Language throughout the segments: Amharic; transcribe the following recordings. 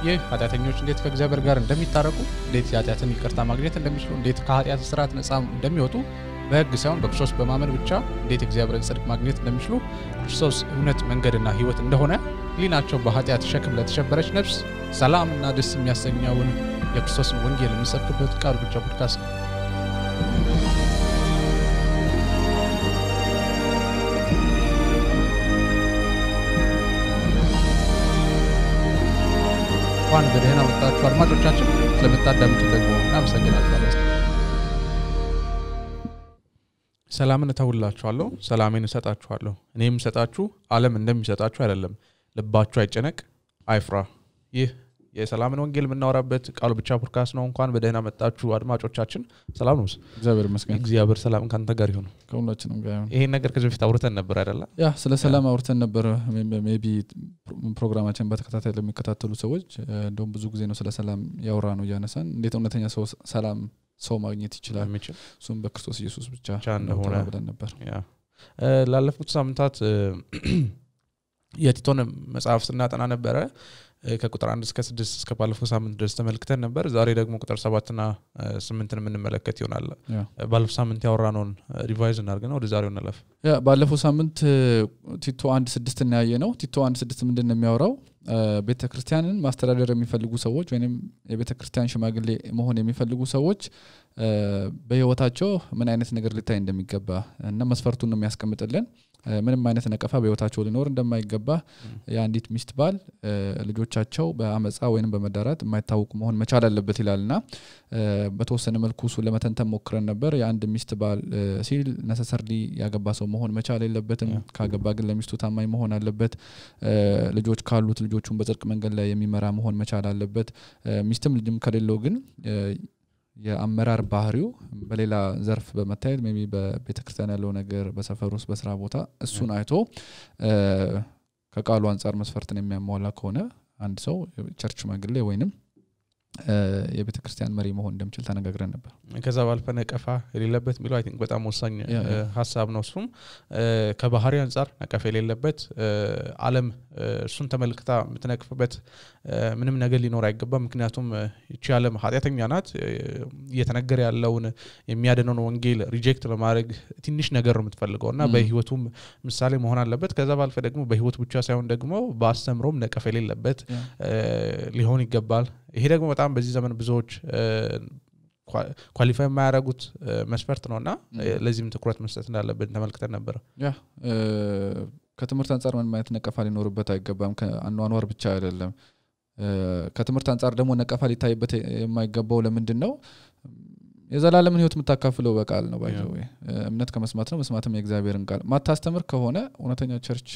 ይህ ኃጢአተኞች እንዴት ከእግዚአብሔር ጋር እንደሚታረቁ እንዴት ኃጢአትን ይቅርታ ማግኘት እንደሚችሉ እንዴት ከኃጢአት ስርዓት ነፃ እንደሚወጡ በሕግ ሳይሆን በክርስቶስ በማመን ብቻ እንዴት እግዚአብሔርን ጽድቅ ማግኘት እንደሚችሉ ክርስቶስ እውነት መንገድና ሕይወት እንደሆነ ሊናቸው በኃጢአት ሸክም ለተሸበረች ነፍስ ሰላምና ደስ የሚያሰኘውን የክርስቶስን ወንጌል የሚሰብክበት ቃል ብቻ ፖድካስት ነው። እንኳን በደህና መጣችሁ አድማጮቻችን። ስለምታዳምጡ ደግሞ እናመሰግናችኋለን። ሰላምን እተውላችኋለሁ፣ ሰላሜን እሰጣችኋለሁ። እኔ የምሰጣችሁ ዓለም እንደሚሰጣችሁ አይደለም። ልባችሁ አይጨነቅ፣ አይፍራ። ይህ የሰላምን ወንጌል የምናወራበት ቃል ብቻ ፖድካስት ነው። እንኳን በደህና መጣችሁ አድማጮቻችን። ሰላም ነው። እግዚአብሔር ይመስገን። እግዚአብሔር ሰላም ካንተ ጋር ይሁን። ከሁላችንም ጋር ይሁን። ይሄን ነገር ከዚህ በፊት አውርተን ነበር አይደል? ያ ስለ ሰላም አውርተን ነበር። ሜቢ ፕሮግራማችን በተከታታይ ለሚከታተሉ ሰዎች እንደውም ብዙ ጊዜ ነው ስለ ሰላም ያወራ ነው ያነሳን። እንዴት እውነተኛ ሰላም ሰው ማግኘት ይችላል እሱም በክርስቶስ ኢየሱስ ብቻ እንደሆነ ብለን ነበር። ያ ላለፉት ሳምንታት የቲቶን መጽሐፍ ስናጠና ነበር። ከቁጥር 1 እስከ 6 እስከ ባለፈው ሳምንት ድረስ ተመልክተን ነበር። ዛሬ ደግሞ ቁጥር 7 እና 8ን የምንመለከት ይሆናል። ባለፈው ሳምንት ያወራነውን ሪቫይዝ እናድርግና ወደ ዛሬው እንለፍ። ያ ባለፈው ሳምንት ቲቶ 1:6 እና ያየነው ቲቶ 1:6 ምንድነው የሚያወራው? ቤተክርስቲያንን ማስተዳደር የሚፈልጉ ሰዎች ወይንም የቤተክርስቲያን ሽማግሌ መሆን የሚፈልጉ ሰዎች በህይወታቸው ምን አይነት ነገር ሊታይ እንደሚገባ እና መስፈርቱን ነው የሚያስቀምጥልን። ምንም አይነት ነቀፋ በህይወታቸው ሊኖር እንደማይገባ የአንዲት ሚስት ባል ልጆቻቸው በአመጻ ወይንም በመዳራት የማይታወቁ መሆን መቻል አለበት ይላልና በተወሰነ መልኩ እሱ ለመተንተን ሞክረን ነበር። የአንድ ሚስት ባል ሲል necessarily ያገባ ሰው መሆን መቻል የለበትም። ካገባ ግን ለሚስቱ ታማኝ መሆን አለበት። ልጆች ካሉት ልጆቹን በጽድቅ መንገድ ላይ የሚመራ መሆን መቻል አለበት። ሚስትም ልጅም ከሌለው ግን የአመራር ባህሪው በሌላ ዘርፍ በመታየት ሜቢ በቤተክርስቲያን ያለው ነገር በሰፈር ውስጥ በስራ ቦታ እሱን አይቶ ከቃሉ አንፃር መስፈርትን የሚያሟላ ከሆነ አንድ ሰው ቸርች ሽማግሌ ወይንም የቤተክርስቲያን መሪ መሆን እንደምችል ተነጋግረን ነበር። ከዛ ባልፈ ነቀፋ የሌለበት ሚለው አይ ቲንክ በጣም ወሳኝ ሐሳብ ነው። እሱም ከባህሪ አንፃር ነቀፋ የሌለበት ዓለም እሱን ተመልክታ የምትነቅፍበት ምንም ነገር ሊኖር አይገባም። ምክንያቱም እቺ ዓለም ኃጢአተኛ ናት። እየተነገረ ያለውን የሚያድነውን ወንጌል ሪጀክት ለማድረግ ትንሽ ነገር ነው የምትፈልገውና በህይወቱም ምሳሌ መሆን አለበት። ከዛ ባልፈ ደግሞ በህይወት ብቻ ሳይሆን ደግሞ በአስተምሮም ነቀፋ የሌለበት ሊሆን ይገባል። ይሄ ደግሞ በጣም በዚህ ዘመን ብዙዎች ኳሊፋይ የማያደርጉት መስፈርት ነውና ለዚህም ትኩረት መስጠት እንዳለበት ተመልክተን ነበር። ያ ከትምህርት አንፃር ምን ማለት ነቀፋ ሊኖርበት አይገባም። ከአኗኗር ብቻ አይደለም። ከትምህርት አንፃር ደግሞ ነቀፋ ሊታይበት የማይገባው ለምንድነው? የዘላለምን ህይወት የምታካፍለው በቃል ነው። ባይዘው እምነት ከመስማት ነው፣ መስማትም የእግዚአብሔርን ቃል። ማታስተምር ከሆነ እውነተኛ ቸርች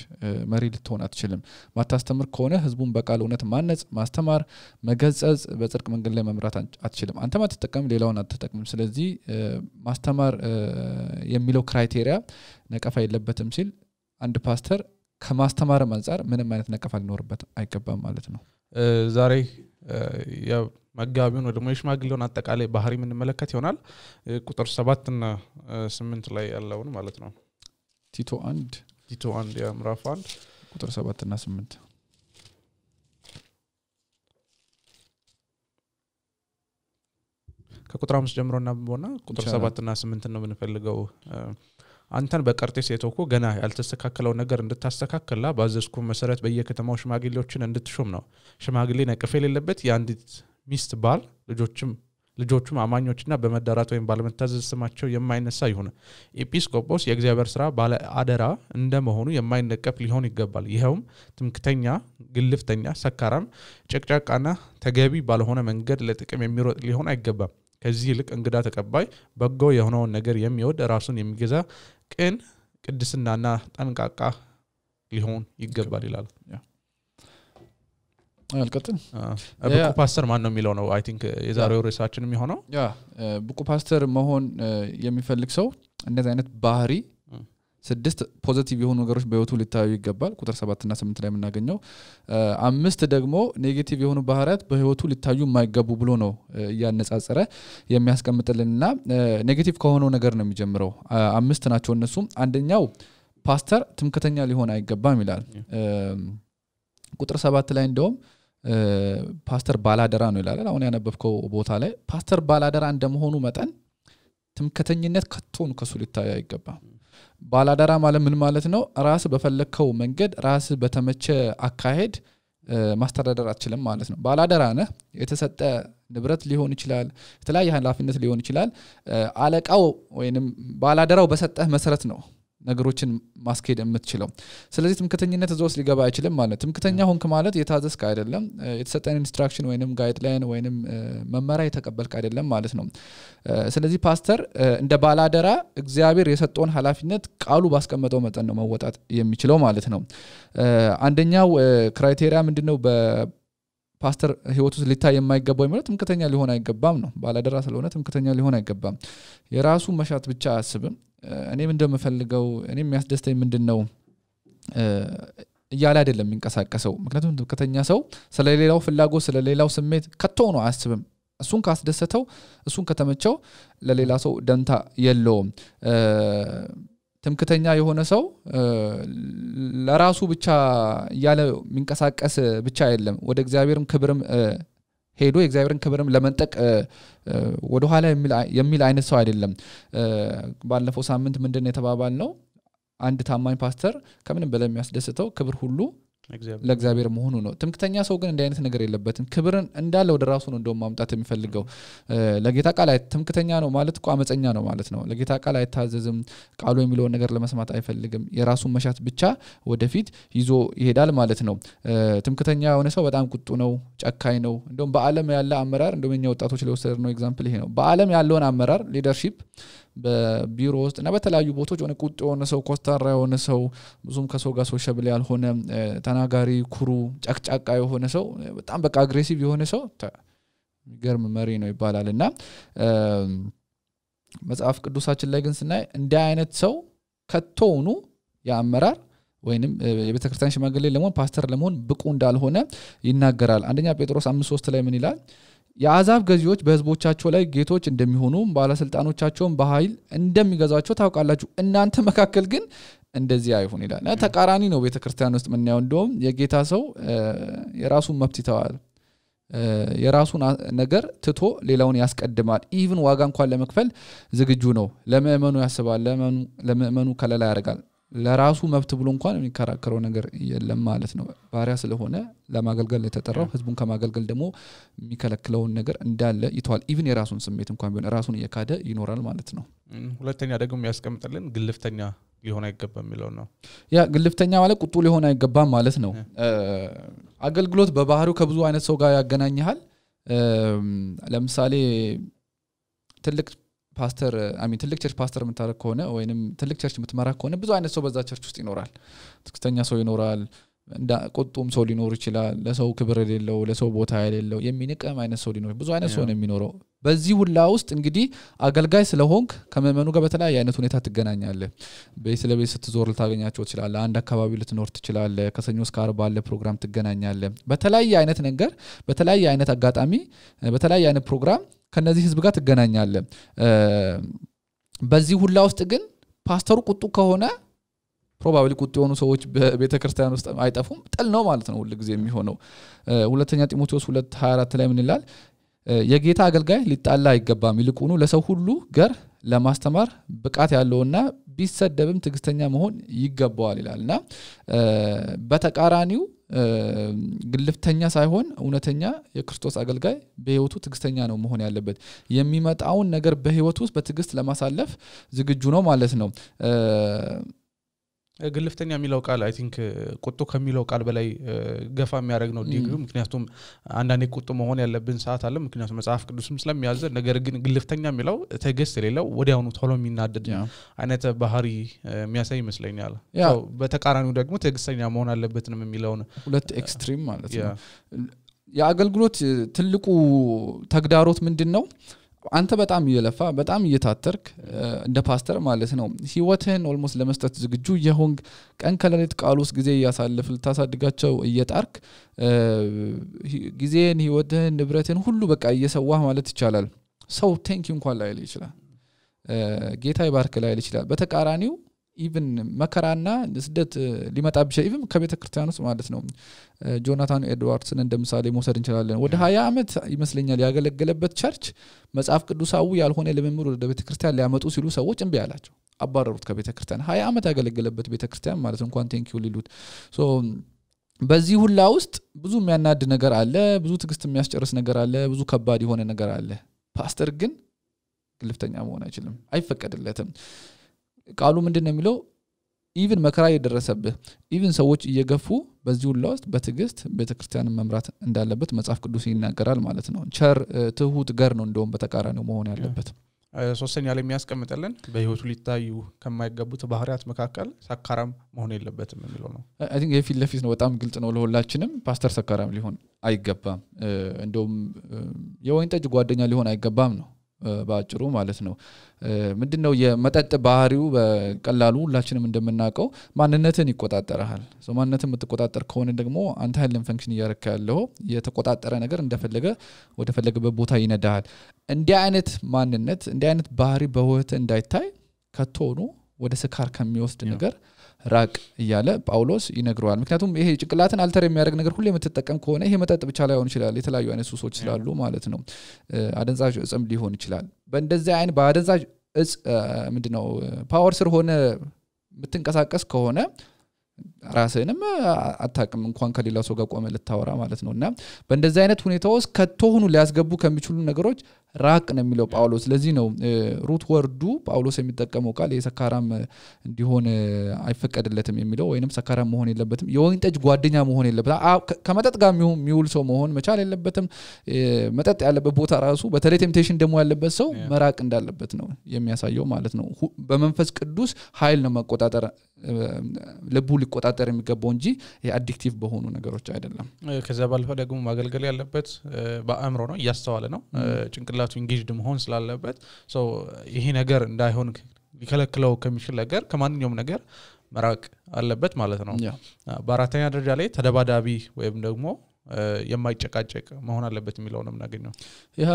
መሪ ልትሆን አትችልም። ማታስተምር ከሆነ ህዝቡን በቃል እውነት ማነጽ፣ ማስተማር፣ መገጸጽ፣ በጽድቅ መንገድ ላይ መምራት አትችልም። አንተ ማትጠቀም ሌላውን አትጠቀምም። ስለዚህ ማስተማር የሚለው ክራይቴሪያ ነቀፋ የለበትም ሲል አንድ ፓስተር ከማስተማርም አንፃር ምንም አይነት ነቀፋ ሊኖርበት አይገባም ማለት ነው። ዛሬ መጋቢውን ወደ ሽማግሌውን አጠቃላይ ባህሪ ምን መለከት ይሆናል? ቁጥር 7 እና 8 ላይ ያለውን ማለት ነው። ቲቶ 1 ምዕራፍ 1 ቁጥር 7 እና 8 ከቁጥር 5 ጀምሮ እናንብበውና ቁጥር 7 እና 8 ነው የምንፈልገው። አንተን በቀርጤስ የተወኩ ገና ያልተስተካከለው ነገር እንድታስተካክላ ባዘዝኩ መሰረት በየከተማው ሽማግሌዎችን እንድትሾም ነው። ሽማግሌ ነቀፋ የሌለበት የአንዲት ሚስት ባል ልጆቹም አማኞችና በመዳራት ወይም ባለመታዘዝ ስማቸው የማይነሳ ይሁን። ኤጲስቆጶስ የእግዚአብሔር ሥራ ባለ አደራ እንደመሆኑ የማይነቀፍ ሊሆን ይገባል። ይሄውም ትምክተኛ፣ ግልፍተኛ፣ ሰካራም፣ ጨቅጫቃና ተገቢ ባልሆነ መንገድ ለጥቅም የሚሮጥ ሊሆን አይገባም። ከዚህ ይልቅ እንግዳ ተቀባይ፣ በጎ የሆነውን ነገር የሚወድ፣ ራሱን የሚገዛ፣ ቅን፣ ቅድስናና ጠንቃቃ ሊሆን ይገባል ይላል። አልቀጥም። ብቁ ፓስተር ማን ነው የሚለው ነው አይ ቲንክ የዛሬው ርዕሳችን የሚሆነው። ያ ብቁ ፓስተር መሆን የሚፈልግ ሰው እንደዚህ አይነት ባህሪ 6 ፖዚቲቭ የሆኑ ነገሮች በህይወቱ ሊታዩ ይገባል። ቁጥር 7 እና 8 ላይ የምናገኘው 5 ደግሞ ኔጌቲቭ የሆኑ ባህሪያት በህይወቱ ሊታዩ የማይገቡ ብሎ ነው ያነጻጸረ የሚያስቀምጥልንና ኔጌቲቭ ከሆነው ነገር ነው የሚጀምረው። 5 ናቸው እነሱም። አንደኛው ፓስተር ትምክተኛ ሊሆን አይገባም ይላል። ቁጥር 7 ላይ እንደውም ፓስተር ባላደራ ነው ይላል አሁን ያነበብከው ቦታ ላይ ፓስተር ባላደራ እንደመሆኑ መጠን ትምክህተኝነት ከቶን ከሱ ሊታይ አይገባም ባላደራ ማለት ምን ማለት ነው ራስ በፈለከው መንገድ ራስ በተመቸ አካሄድ ማስተዳደር አትችልም ማለት ነው ባላደራ ነህ የተሰጠ ንብረት ሊሆን ይችላል የተለያየ ኃላፊነት ሊሆን ይችላል አለቃው ወይንም ባላደራው በሰጠህ መሰረት ነው ነገሮችን ማስኬድ የምትችለው ስለዚህ ትምክህተኝነት እዛው ሊገባ አይችልም ማለት ትምክህተኛ ሆንክ ማለት የታዘዝክ አይደለም የተሰጠን ኢንስትራክሽን ወይንም ጋይድላይን ወይንም መመሪያ የተቀበልክ አይደለም ማለት ነው ስለዚህ ፓስተር እንደ ባላደራ እግዚአብሔር የሰጠውን ኃላፊነት ቃሉ ባስቀመጠው መጠን ነው መወጣት የሚችለው ማለት ነው አንደኛው ክራይቴሪያ ምንድነው በፓስተር ህይወቱ ሊታይ የማይገባው ማለት ትምክህተኛ ሊሆን አይገባም ነው ባላደራ ስለሆነ ትምክህተኛ ሊሆን አይገባም የራሱ መሻት ብቻ አያስብም እኔም እንደምፈልገው እኔም የሚያስደስተኝ ምንድነው እያለ አይደለም የሚንቀሳቀሰው ምክንያቱም ትምክህተኛ ሰው ስለሌላው ፍላጎት ስለሌላው ስሜት ከቶ ነው አያስብም እሱን ካስደሰተው እሱን ከተመቸው ለሌላ ሰው ደንታ የለውም ትምክህተኛ የሆነ ሰው ለራሱ ብቻ ያለ የሚንቀሳቀስ ብቻ አይደለም ወደ እግዚአብሔርም ክብርም ሄዶ የእግዚአብሔርን ክብርም ለመንጠቅ ወደ ኋላ የሚል አይነት ሰው አይደለም ባለፈው ሳምንት ምንድነው የተባባልነው አንድ ታማኝ ፓስተር ከምንም በላይ የሚያስደስተው ክብር ሁሉ ለእግዚአብሔር መሆኑ ነው ትምክህተኛ ሰው ግን እንደ አይነት ነገር የለበትም ክብርን እንዳለ ወደ ራሱ ነው እንደውም ማምጣት የሚፈልገው ለጌታ ቃል ትምክህተኛ ነው ማለት እኮ አመፀኛ ነው ማለት ነው ለጌታ ቃል አይታዘዝም ቃሉ የሚለውን ነገር ለመስማት አይፈልግም የራሱን መሻት ብቻ ወደፊት ይዞ ይሄዳል ማለት ነው ትምክህተኛ የሆነ ሰው በጣም ቁጡ ነው ጨካኝ ነው እንደውም በአለም ያለ አመራር እንደውም የኛ ወጣቶች ለወሰድ ነው ኤግዛምፕል ይሄ ነው በአለም ያለውን አመራር ሊደርሺፕ በቢሮ ውስጥ እና በተለያዩ ቦታዎች ሆነ ቁጡ የሆነ ሰው ኮስታራ የሆነ ሰው ብዙም ከሰው ጋር ሶሻብል ያልሆነ ተናጋሪ ኩሩ ጫቅጫቃ የሆነ ሰው በጣም በቃ አግሬሲቭ የሆነ ሰው ገርም መሪ ነው ይባላልና መጽሐፍ ቅዱሳችን ላይ ግን ስናይ እንደ አይነት ሰው ከቶውኑ ያመራር ወይንም የቤተክርስቲያን ሽማግሌ ለመሆን ፓስተር ለመሆን ብቁ እንዳልሆነ ይናገራል አንደኛ ጴጥሮስ 5:3 ላይ ምን ይላል የአዛብ ገዢዎች በህዝቦቻቸው ላይ ጌቶች እንደሚሆኑ ባለስልጣኖቻቸውን በኃይል እንደሚገዛቸው ታውቃላችሁ እናንተ መካከል ግን እንደዚህ አይሁን ይላል ተቃራኒ ነው ቤተክርስቲያን ውስጥ ምን ያው እንደውም የጌታ ሰው የራሱን መብት ይተዋል የራሱን ነገር ትቶ ሌላውን ያስቀድማል ኢቭን ዋጋ እንኳን ለመክፈል ዝግጁ ነው ለምእመኑ ያስባል ለምእመኑ ከለላ ያደርጋል ለራሱ መብት ብሎ እንኳን የሚከራከረው ነገር የለም ማለት ነው ባሪያ ስለሆነ ለማገልገል የተጠራው ህዝቡን ከማገልገል ደግሞ የሚከለክለው ነገር እንዳለ ይተዋል ኢቭን የራሱን ስሜት እንኳን ቢሆን ራሱን እየካደ ይኖራል ማለት ነው ሁለተኛ ደግሞ ያስቀምጥልን ግልፍተኛ ሊሆን አይገባም የሚለው ነው ያ ግልፍተኛ ማለት ቁጡ ሊሆን አይገባም ማለት ነው አገልግሎት በባህሪው ከብዙ አይነት ሰው ጋር ያገናኛል ለምሳሌ ትልቅ ፓስተር ትልቅ ቸርች ፓስተር የምታረክ ከሆነ ወይንም ትልቅ ቸርች የምትመራ ከሆነ ብዙ አይነት ሰው በዛ ቸርች ውስጥ ይኖራል ትክክለኛ ሰው ይኖራል እንዳ ቁጡም ሰው ሊኖር ይችላል ለሰው ክብር የሌለው ለሰው ቦታ የሌለው የሚንቀም አይነት ሰው ሊኖር ብዙ አይነት ሰው ነው የሚኖረው በዚህ ሁላ ውስጥ እንግዲህ አገልጋይ ስለሆንክ ከመመኑ ጋር በተለያየ አይነት ሁኔታ ትገናኛለህ በስለቤት ስትዞር ልታገኛቸው ይችላል አንድ አካባቢ ልትኖር ትችላለህ ከሰኞ እስከ ዓርብ ባለ ፕሮግራም ትገናኛለህ በተለያየ አይነት ነገር በተለያየ አይነት አጋጣሚ በተለያየ አይነት ፕሮግራም ከነዚህ ህዝብ ጋር ትገናኛለህ በዚህ ሁላ ውስጥ ግን ፓስተሩ ቁጡ ከሆነ ፕሮባብሊ ቁጡ የሆኑ ሰዎች በቤተክርስቲያን ውስጥ አይጠፉም ጥል ነው ማለት ነው ሁሉ ጊዜ የሚሆነው ሁለተኛ ጢሞቴዎስ 2:24 ላይ ምን ይላል የጌታ አገልጋይ ሊጣላ አይገባም ይልቁኑ ለሰው ሁሉ ገር ለማስተማር ብቃት ያለውና ቢሰደብም ትግስተኛ መሆን ይገባዋል ይላልና በተቃራኒው ግልፍተኛ ሳይሆን እውነተኛ የክርስቶስ አገልጋይ በህይወቱ ትግስተኛ ነው መሆን ያለበት የሚመጣውን ነገር በህይወቱ ውስጥ በትግስት ለማሳለፍ ዝግጁ ነው ማለት ነው ግልፍተኛ የሚለው ቃል አይ ቲንክ ቁጡ ከሚለው ቃል በላይ ገፋ የሚያደርግ ነው ዲግሪ ምክንያቱም አንዳንዴ ቁጡ መሆን ያለብን ሰዓት አለ ምክንያቱም መጽሐፍ ቅዱስም ስለሚያዘ ነገር ግን ግልፍተኛ የሚለው ትዕግስት የሌለው ወዲያውኑ ቶሎ የሚናደድ አይነት ባህሪ የሚያሳይ ይመስለኛል ያው በተቃራኒው ደግሞ ትዕግስተኛ መሆን አለበት ነው የሚለው ሁለት ኤክስትሪም ማለት ነው የአገልግሎት ትልቁ ተግዳሮት ምንድነው አንተ በጣም እየለፋ በጣም እየታተርክ እንደ ፓስተር ማለት ነው ህይወትህን ኦልሞስት ለመስጠት ዝግጁ የሆንክ ቀን ከሌሊት ቃል ውስጥ ጊዜ ያሳልፍ ልታሳድጋቸው እየጣርክ ጊዜን ህይወትህን ንብረትን ሁሉ በቃ እየሰዋህ ማለት ይቻላል ሰው ቴንክ ዩ እንኳን ላይል ይችላል ጌታ ይባርክ ላይል ይችላል በተቃራኒው ኢቭን መከራና ስደት ሊመጣ ቢችል ኢቭን ከቤተክርስቲያን ውስጥ ማለት ነው ጆናታን ኤድዋርድስን እንደምሳሌ መውሰድ እንችላለን ወደ 20 አመት ይመስለኛል ያገለገለበት ቸርች መጽሐፍ ቅዱሳዊ ያልሆነ ልምምድ ወደ ቤተክርስቲያን ሊያመጡ ሲሉ ሰዎች እንቢ አላቸው አባረሩት ከቤተክርስቲያን 20 አመት ያገለገለበት ቤተክርስቲያን ማለት እንኳን ቴንኪው ሊሉት ሶ በዚህ ሁላ ውስጥ ብዙ የሚያናድ ነገር አለ ብዙ ትግስት የሚያስጨርስ ነገር አለ ብዙ ከባድ የሆነ ነገር አለ ፓስተር ግን ግልፍተኛ መሆን አይችልም አይፈቀድለትም ቃሉ ምንድነው የሚለው ኢቭን መከራ የደረሰብህ ኢቭን ሰዎች እየገፉ በዚህ ሁላ ውስጥ በትግስት ቤተክርስቲያንን መምራት እንዳለበት መጽሐፍ ቅዱስ ይናገራል ማለት ነው ቸር ትሁት ገር ነው እንደውም በተቃራኒው መሆን ያለበት ሶስተኛ ላይ የሚያስቀምጥልን በህይወቱ ሊታዩ ከማይገቡት ባህሪያት መካከል ሰካራም መሆን የለበትም የሚለው ነው አይ ቲንክ የፊት ለፊት ነው በጣም ግልጽ ነው ለሁላችንም ፓስተር ሰካራም ሊሆን አይገባም እንደውም የወይን ጠጅ ጓደኛ ሊሆን አይገባም ነው ባጭሩ ማለት ነው ምንድነው የመጠጥ ባህሪው በቀላሉ ሁላችንም እንደምናውቀው ማንነትን ይቆጣጣራል ማንነትን የምትቆጣጣር ከሆነ ደግሞ አንተ ኃይልን ፈንክሽን እያረካ ያለው የተቆጣጣረ ነገር እንደፈለገ ወደ ፈለገበት ቦታ ይነዳል እንዲህ አይነት ማንነት እንዲህ አይነት ባህሪ በህይወት እንዳይታይ ከቶኑ ወደ ስካር ከሚወስድ ነገር ራቅ እያለ ጳውሎስ ይነግረዋል ምክንያቱም ይሄ ጭቅላትን አልተር የሚያደርግ ነገር ሁሉ የምትጠቀም ከሆነ ይሄ መጠጥ ብቻ ላይሆን ይችላል የተለያዩ አይነት ሱሶች ስላሉ ማለት ነው አደንዛዥ እጽም ሊሆን ይችላል በእንደዚህ አይነት በአደንዛዥ እጽ ምንድነው ፓወር ስር ሆነ የምትንቀሳቀስ ከሆነ ራስህንም አታቅም እንኳን ከሌላ ሰው ጋር ቆመ ልታወራ ማለት ነውና በእንደዚህ አይነት ሁኔታ ውስጥ ከተሆኑ ሊያስገቡ ከሚችሉ ነገሮች ራቅ ነው የሚለው ጳውሎስ ለዚህ ነው ሩት ወርዱ ጳውሎስ የሚጠቀመው ቃል የሰካራም እንዲሆን አይፈቀድለትም የሚለው ወይንም ሰካራም መሆን የለበትም የወይን ጠጅ ጓደኛ መሆን የለበትም ከመጠጥ ጋር የሚውል ሰው መሆን መቻል የለበትም መጠጥ ያለበት ቦታ ራሱ በተለይ ቴምፕቴሽን ደሞ ያለበት ሰው መራቅ እንዳለበት ነው የሚያሳየው ማለት ነው በመንፈስ ቅዱስ ኃይል ነው መቆጣጠር ልቡ ሊቆጣጠር የሚገባው እንጂ የአዲክቲቭ በሆኑ ነገሮች አይደለም ከዛ ባለፈ ደግሞ ማገልገል ያለበት በአእምሮ ነው ያስተዋለ ነው ጭንቅላቱ ኢንጌጅድ መሆን ስላለበት ሶ ይሄ ነገር እንዳይሆን ሊከለክለው ከሚችል ነገር ከማንኛውም ነገር መራቅ አለበት ማለት ነው በአራተኛ ደረጃ ላይ ተደባዳቢ ወይም ደግሞ የማይጨቃጨቅ መሆን አለበት የሚለው ነው እናገኘው ያ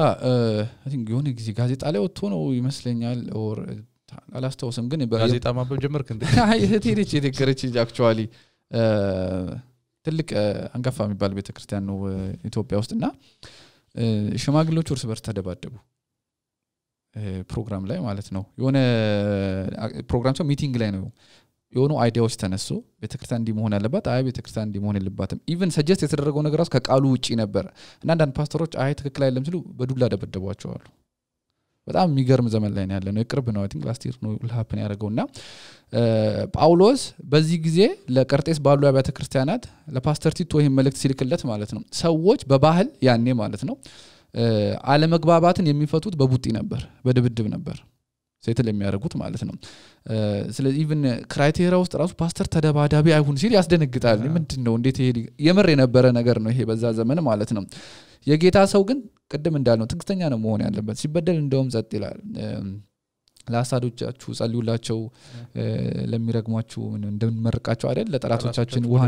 አይ ቲንክ የሆነ ጊዜ ጋዜጣ ላይ ወጥቶ ነው ይመስለኛል ኦር አላስተውስም ግን ጋዜጣ ማንበብ ጀመርክ እንዴ አይ እህቴ የተከረች አክቹአሊ ትልቅ አንጋፋ የሚባል ቤተክርስቲያን ነው ኢትዮጵያ ውስጥና ሽማግሌዎች እርስ በርስ ተደባደቡ ፕሮግራም ላይ ማለት ነው የሆነ ፕሮግራም ሰው ሚቲንግ ላይ ነው የሆኑ አይዲያዎች ተነሱ ቤተክርስቲያን እንዲ መሆን ያለባት አይ ቤተክርስቲያን እንዲ መሆን የለባትም ኢቭን ሰጀስት የተደረገው ነገር ራስ ከቃሉ ውጪ ነበር እና አንዳንድ ፓስተሮች አይ ትክክል አይደለም ሲሉ በዱላ ደበደቧቸው አሉ በጣም የሚገርም ዘመን ላይ ነው ያለነው የቅርብ ነው አይ ቲንክ ላስት ይር ነው ሀፕን ያደረገውና ጳውሎስ በዚህ ጊዜ ለቀርጤስ ባሉ አብያተ ክርስቲያናት ለፓስተር ቲቶ ይሄን መልእክት ሲልክለት ማለት ነው ሰዎች በባህል ያኔ ማለት ነው አለመግባባትን የሚፈቱት በቡጢ ነበር በድብድብ ነበር ሴትል የሚያደርጉት ማለት ነው ስለዚህ ኢቭን ክራይቴሪያ ውስጥ ራሱ ፓስተር ተደባዳቢ አይሁን ሲል ያስደነግጣል ምንድነው እንዴት ይሄ የመር የነበረ ነገር ነው ይሄ በዛ ዘመን ማለት ነው የጌታ ሰው ግን ቅድም እንዳልነው ትግስተኛ ነው መሆን ያለበት ሲበደል እንደውም ጸጥ ይላል ለአሳዶቻችሁ ጸልዩላቸው ለሚረግሟችሁ እንደምንመርቃቸው አይደል ለጠላቶቻችን ውሃ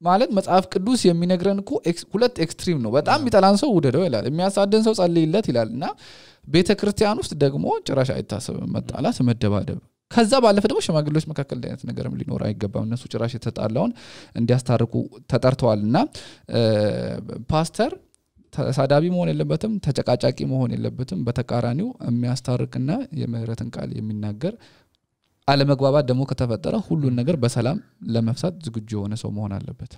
ማለት መጽሐፍ ቅዱስ የሚነግረን እኮ ሁለት ኤክስትሪም ነው በጣም የሚጠላን ሰው ውደደው ይላል የሚያሳደን ሰው ጸልይለት ይላልና ቤተክርስቲያን ውስጥ ደግሞ ጭራሽ አይታሰብም መጣላት መደባደብ ከዛ ባለፈ ደግሞ ሽማግሌዎች መካከል አይነት ነገርም ሊኖር አይገባም እነሱ ጭራሽ የተጣላውን እንዲያስታርቁ ተጠርተዋልና ፓስተር ተሳዳቢ መሆን የለበትም ተጨቃጫቂ መሆን የለበትም በተቃራኒው የሚያስታርቅና የምህረትን ቃል የሚናገር አለመግባባት ደግሞ ከተፈጠረ ሁሉን ነገር በሰላም ለመፍታት ዝግጁ የሆነ ሰው መሆን አለበት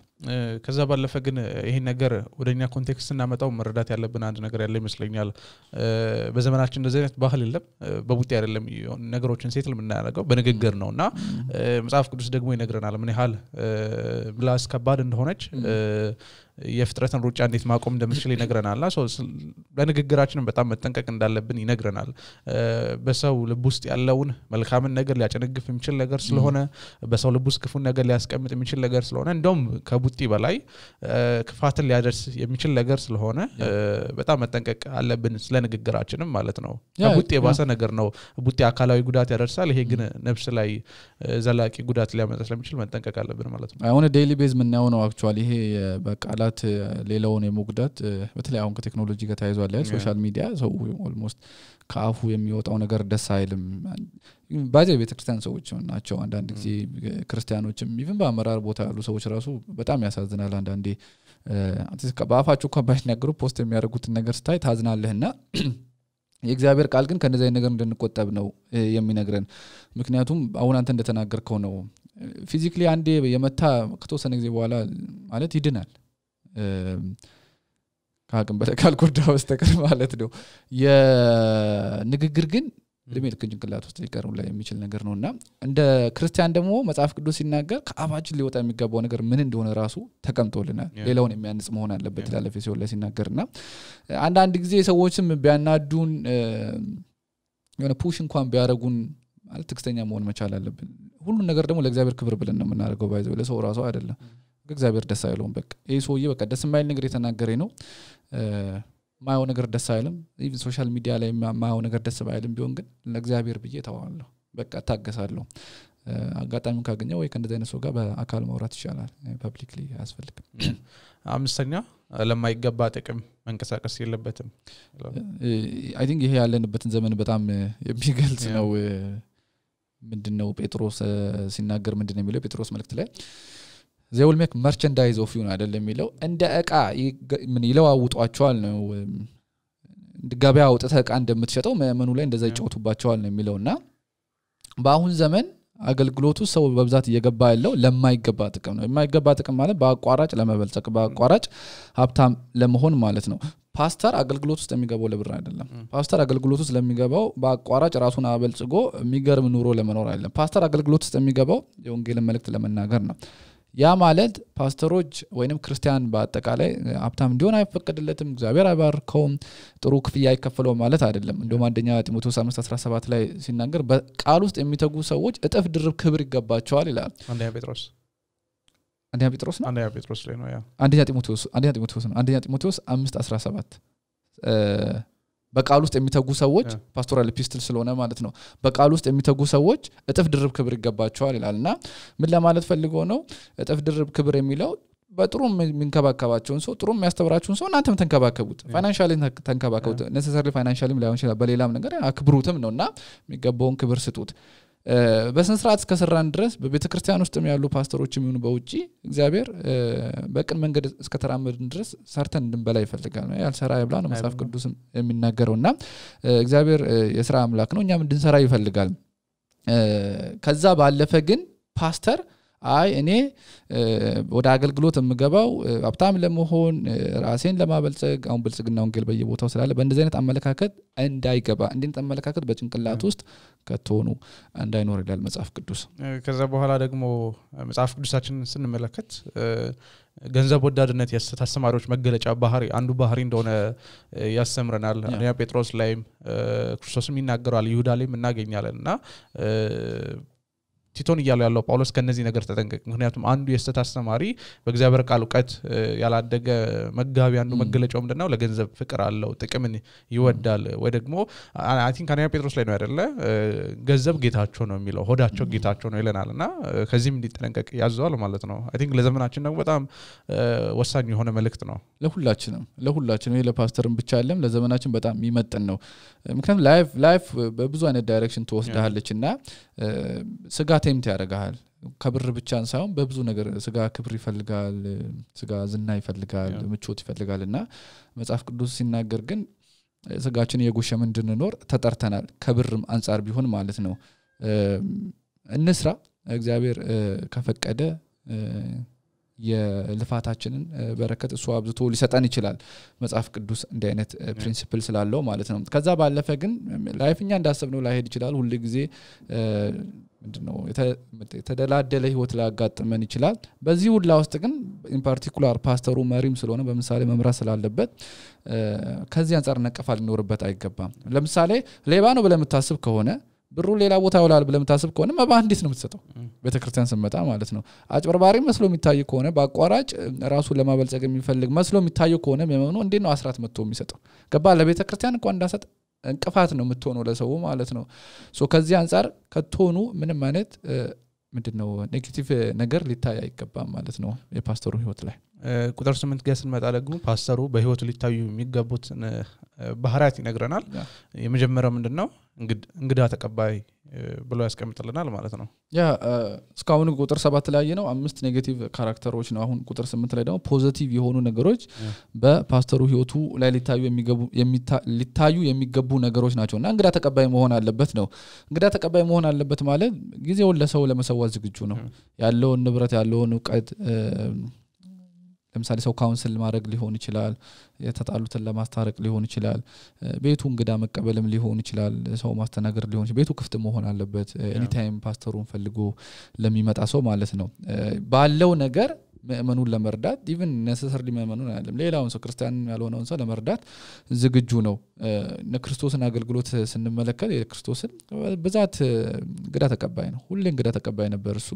ከዛ ባለፈ ግን ይሄ ነገር ወደኛ ኮንቴክስት እናመጣው መረዳት ያለብን አንድ ነገር ያለ ይመስለኛል በዘመናችን እንደዚህ አይነት ባህል የለም በቡጢ አይደለም ነገሮችን ሴትል የምናደርገው በንግግር ነውና መጽሐፍ ቅዱስ ደግሞ ይነግረናል ምን ያህል ምላስ ከባድ እንደሆነች የፍጥረትን ሩጫ እንዴት ማቆም እንደምትችል ይነግረናልና በንግግራችንም በጣም መጠንቀቅ እንዳለብን ይነግረናል በሰው ልብ ውስጥ ያለውን መልካምን ነገር ሊያጨነግፍ የሚችል ነገር ስለሆነ በሰው ልብ ውስጥ ክፉን ነገር ሊያስቀምጥ የሚችል ነገር ስለሆነ እንደውም ከቡጢ በላይ ክፋትን ሊያደርስ የሚችል ነገር ስለሆነ በጣም መጠንቀቅ አለብን ስለ ንግግራችንም ማለት ነው ከቡጢ የባሰ ነገር ነው ቡጢ አካላዊ ጉዳት ያደርሳል ይሄ ግን ነፍስ ላይ ዘላቂ ጉዳት ሊያመጣ ስለሚችል መጠንቀቅ አለብን ማለት ነው አሁን ዴይሊ ቤዝ ምን ነው አክቹአሊ ይሄ በቃላት ሌላውን የሞግዳት በተለይ አሁን ከቴክኖሎጂ ጋር ተያይዟል ሶሻል ሚዲያ ሰው ኦልሞስት ካፉ የሚወጣው ነገር ደስ አይልም ባዜ ቤተክርስቲያን ሰዎች ናቸው አንዳንድ ጊዜ ክርስቲያኖችም ኢቭን በአመራር ቦታ ያሉ ሰዎች ራሱ በጣም ያሳዝናል አንዳንዴ በአፋቸው እንኳን ባይናገሩ ፖስት የሚያደርጉት ነገር ስታይ ታዝናለህና የእግዚአብሔር ቃል ግን ከነዚህ ነገር እንድንቆጠብ ነው የሚነግረን ምክንያቱም አሁን አንተ እንደተናገርከው ነው ፊዚካሊ አንዴ የመታ ከተወሰነ ጊዜ በኋላ ማለት ይድናል ካቅም በለካል ጎዳው በስተቀር ማለት ነው የንግግር ግን ለምን ከጭንቅላት ውስጥ ሊቀርም ላይ የሚችል ነገር ነውና እንደ ክርስቲያን ደግሞ መጽሐፍ ቅዱስ ሲናገር ከአባችን ሊወጣ የሚገባው ነገር ምን እንደሆነ ራሱ ተቀምጦልናል ሌላውን የሚያንጽ መሆን አለበት ይላል ኤፌሶን ላይ ሲናገርና አንዳንድ ጊዜ ሰዎችም ቢያናዱን የሆነ ፑሽ እንኳን ቢያረጉን ማለት ትክክለኛ መሆን መቻል አለብን ሁሉ ነገር ደግሞ ለእግዚአብሔር ክብር ብለን ነው የምናደርገው ባይዘው ለሰው ራሱ አይደለም እግዚአብሔር ደስ አይለውም በቃ ይሄ ሰውዬ በቃ ደስ የማይል ነገር የተናገረኝ ነው ማየው ነገር ደስ አይልም ኢቭን ሶሻል ሚዲያ ላይ ማየው ነገር ደስ ባይልም ቢሆን ግን ለእግዚአብሔር ብዬ ተዋዋለሁ በቃ ታገሳለሁ አጋጣሚውን ካገኘው ወይ ከእንደዚህ አይነት ሰው ጋር በአካል ማውራት ይችላል ፐብሊክሊ አያስፈልግም አምስተኛ ለማይገባ ጥቅም መንቀሳቀስ የለበትም አይ ቲንክ ይሄ ያለንበትን ዘመን በጣም የሚገልጽ ነው ምንድነው ጴጥሮስ ሲናገር ምንድነው የሚለው ጴጥሮስ መልእክት ላይ they will make merchandise of you አይደለም የሚለው እንደ ዕቃ ምን ይለዋውጧቸዋል ነው ገበያ አውጥተህ ዕቃ እንደምትሸጠው መመኑ ላይ እንደዛ ይጫወቱባቸዋል ነው የሚለውና በአሁን ዘመን አገልግሎቱ ሰው በብዛት እየገባ ያለው ለማይገባ ጥቅም ነው የማይገባ ጥቅም ማለት በአቋራጭ ለመበልጸግ በአቋራጭ ሀብታም ለመሆን ማለት ነው ፓስተር አገልግሎት ውስጥ የሚገባው ለብር አይደለም ፓስተር አገልግሎት ውስጥ ለሚገባው በአቋራጭ ራሱን አበልጽጎ የሚገርም ኑሮ ለመኖር አይደለም ፓስተር አገልግሎት ውስጥ የሚገባው የወንጌልን መልእክት ለመናገር ነው ያ ማለት ፓስተሮች ወይንም ክርስቲያን በአጠቃላይ ሀብታም እንዲሆን አይፈቀድለትም እግዚአብሔር አይባርከውም ጥሩ ክፍያ አይከፈለው ማለት አይደለም እንደውም አንደኛ ጢሞቴዎስ 5:17 ላይ ሲናገር በቃል ውስጥ የሚተጉ ሰዎች እጥፍ ድርብ ክብር ይገባቸዋል ይላል አንደኛ ጴጥሮስ ላይ ነው ያ አንደኛ ጢሞቴዎስ 5:17 በቃል ውስጥ የሚተጉ ሰዎች ፓስቶራል ኤፒስትል ስለሆነ ማለት ነው በቃል ውስጥ የሚተጉ ሰዎች እጥፍ ድርብ ክብር ይገባቸዋል ይላልና ምን ለማለት ፈልጎ ነው እጥፍ ድርብ ክብር የሚለው በጥሩ ምንከባከባቸውን ሰው ጥሩ የሚያስተምራቸውን ሰው እናንተም ተንከባከቡት ፋይናንሻሊ ተንከባከቡት necessarily financially ላይሆን ይችላል በሌላም ነገር አክብሩትም ነውና የሚገባውን ክብር ስጡት በስነ ስርዓት እስከሰራን ድረስ በቤተክርስቲያን ውስጥም ያሉ ፓስተሮችም ይሁን በውጪ እግዚአብሔር በቅን መንገድ እስከተራመድን ድረስ ሰርተን እንድንበላ ይፈልጋል ያልሰራ ይብላ ነው መጽሐፍ ቅዱስም የሚናገረውና እግዚአብሔር የሥራ አምላክ ነው እኛም እንድንሰራ ይፈልጋል ከዛ ባለፈ ግን ፓስተር አይ እኔ ወደ አገልግሎት የምገባው ሀብታም ለመሆን ራሴን ለማበልጸግ አሁን ብልጽግና ወንጌል በየቦታው ስላለ በእንደዚህ አይነት አመለካከት እንዳይገባ እንዴት አመለካከት በጭንቅላት ውስጥ ከተሆኑ እንዳይኖር ይላል መጽሐፍ ቅዱስ ከዛ በኋላ ደግሞ መጽሐፍ ቅዱሳችንን ስንመለከት ገንዘብ ወዳድነት ያስተማሪዎች መገለጫ ባህሪ አንዱ ባህሪ እንደሆነ ያስተምረናል አንደኛ ጴጥሮስ ላይም ክርስቶስም ይናገራል ይሁዳ ላይም እናገኛለንና ቲቶን ያለው ጳውሎስ ከነዚህ ነገር ተጠንቀቅ ምክንያቱም አንዱ የስተት አስተማሪ በእግዚአብሔር ቃል ዕውቀት ያላደገ መጋቢ አንዱ መገለጫው ምንድነው ለገንዘብ ፍቅር አለው ጥቅምን ይወዳል ወይ ደግሞ አይ ቲንክ አንደኛ ጴጥሮስ ላይ ነው አይደለ ገንዘብ ጌታቸው ነው የሚለው ሆዳቸው ጌታቸው ነው ይለናልና ከዚህም እንዲጠነቀቅ ያዘዋል ማለት ነው አይ ቲንክ ለዘመናችን ደግሞ በጣም ወሳኝ የሆነ መልእክት ነው ለሁላችንም ለፓስተርም ብቻ አይደለም ለዘመናችን በጣም የሚመጥን ነው ምክንያቱም ላይፍ በብዙ አይነት ዳይሬክሽን ተወስዳለችና ስጋ ቴምት ያደርጋል ከብር ብቻ ሳይሆን በብዙ ነገር ስጋ ክብር ይፈልጋል ስጋ ዝና ይፈልጋል ምቾት ይፈልጋልና መጽሐፍ ቅዱስ ሲናገር ግን ስጋችን የጎሸመ እንድንኖር ተጠርተናል ከብርም አንፃር ቢሆን ማለት ነው እንስራ እግዚአብሔር ከፈቀደ የልፋታችንን በረከት እሱ አብዝቶ ሊሰጠን ይችላል መጽሐፍ ቅዱስ እንደ አይነት ፕሪንሲፕል ስላለው ማለት ነው ከዛ ባለፈ ግን ላይፍኛ እንዳሰብነው ላይሄድ ይችላል ሁሉ ጊዜ ምንድነው የተደላደለ ህይወት ላጋጥመን ይችላል በዚህ ሁሉ ውስጥ ግን ኢን ፓርቲኩላር ፓስተሩ መሪም ስለሆነ በመሳሌ መምራት ስላለበት ከዚህ አንፃር ነቀፋል ሊኖርበት አይገባም ለምሳሌ ሌባ ነው ብለህ የምታስብ ከሆነ ብሩ ሌላ ቦታ ይውላል ብለህ የምታስብ ከሆነ መባንዲስ ነው የምትሰጠው ቤተክርስቲያን ስመጣ ማለት ነው አጭበርባሪ መስሎ የሚታይ ከሆነ በአቋራጭ ራሱን ለማበልጸግ የሚፈልግ መስሎ የሚታይ ከሆነ መመኑ እንዴት ነው አስራት መጥቶ የሚሰጠው ገባ ለቤተክርስቲያን እንኳን እንዳሰጥ እንቅፋት ነው የምትሆነው ለሰው ማለት ነው ሶ ከዚህ አንፃር ከተሆኑ ምንም ማለት ምንድነው ኔጌቲቭ ነገር ሊታይ አይገባም ማለት ነው የፓስተሩ ህይወት ላይ ቁጥር 8 ጋር ስንመጣ ደግሞ ፓስተሩ በህይወቱ ሊታዩ የሚገቡት ባህሪያት ይነግረናል የመጀመሪያው ምንድነው እንግዳ ተቀባይ ብሎ ያስቀምጥልናል ማለት ነው ያ እስካሁን ቁጥር 7 ላይ ነው 5 ኔጌቲቭ ካራክተሮች ነው አሁን ቁጥር 8 ላይ ደግሞ ፖዚቲቭ የሆኑ ነገሮች በፓስተሩ ህይወቱ ላይ ሊታዩ የሚገቡ ነገሮች ናቸውና እንግዳ ተቀባይ መሆን አለበት ነው እንግዳ ተቀባይ መሆን አለበት ማለት ጊዜውን ለሰው ለመሰዋት ዝግጁ ነው ያለውን ንብረት ያለውን ዕውቀት ለምሳሌ ሰው ካውንስል ማድረግ ሊሆን ይችላል የተጣሉትን ለማስታረቅ ሊሆን ይችላል ቤቱ እንግዳ መቀበልም ሊሆን ይችላል ሰው ማስተናገር ሊሆን ይችላል ቤቱ ክፍት መሆን አለበት ኤኒ ታይም ፓስተሩን ፈልጎ ለሚመጣ ሰው ማለት ነው ባለው ነገር መእመኑን ለመርዳት ኢቭን necessarily መእመኑን አይደለም ሌላውን ሰው ክርስቲያን ያልሆነውን ሰው ለመርዳት ዝግጁ ነው ለክርስቶስን አገልግሎት ስንመለከት የክርስቶስን በዛት እንግዳ ተቀባይ ነው ሁሌ እንግዳ ተቀባይ ነበር እሱ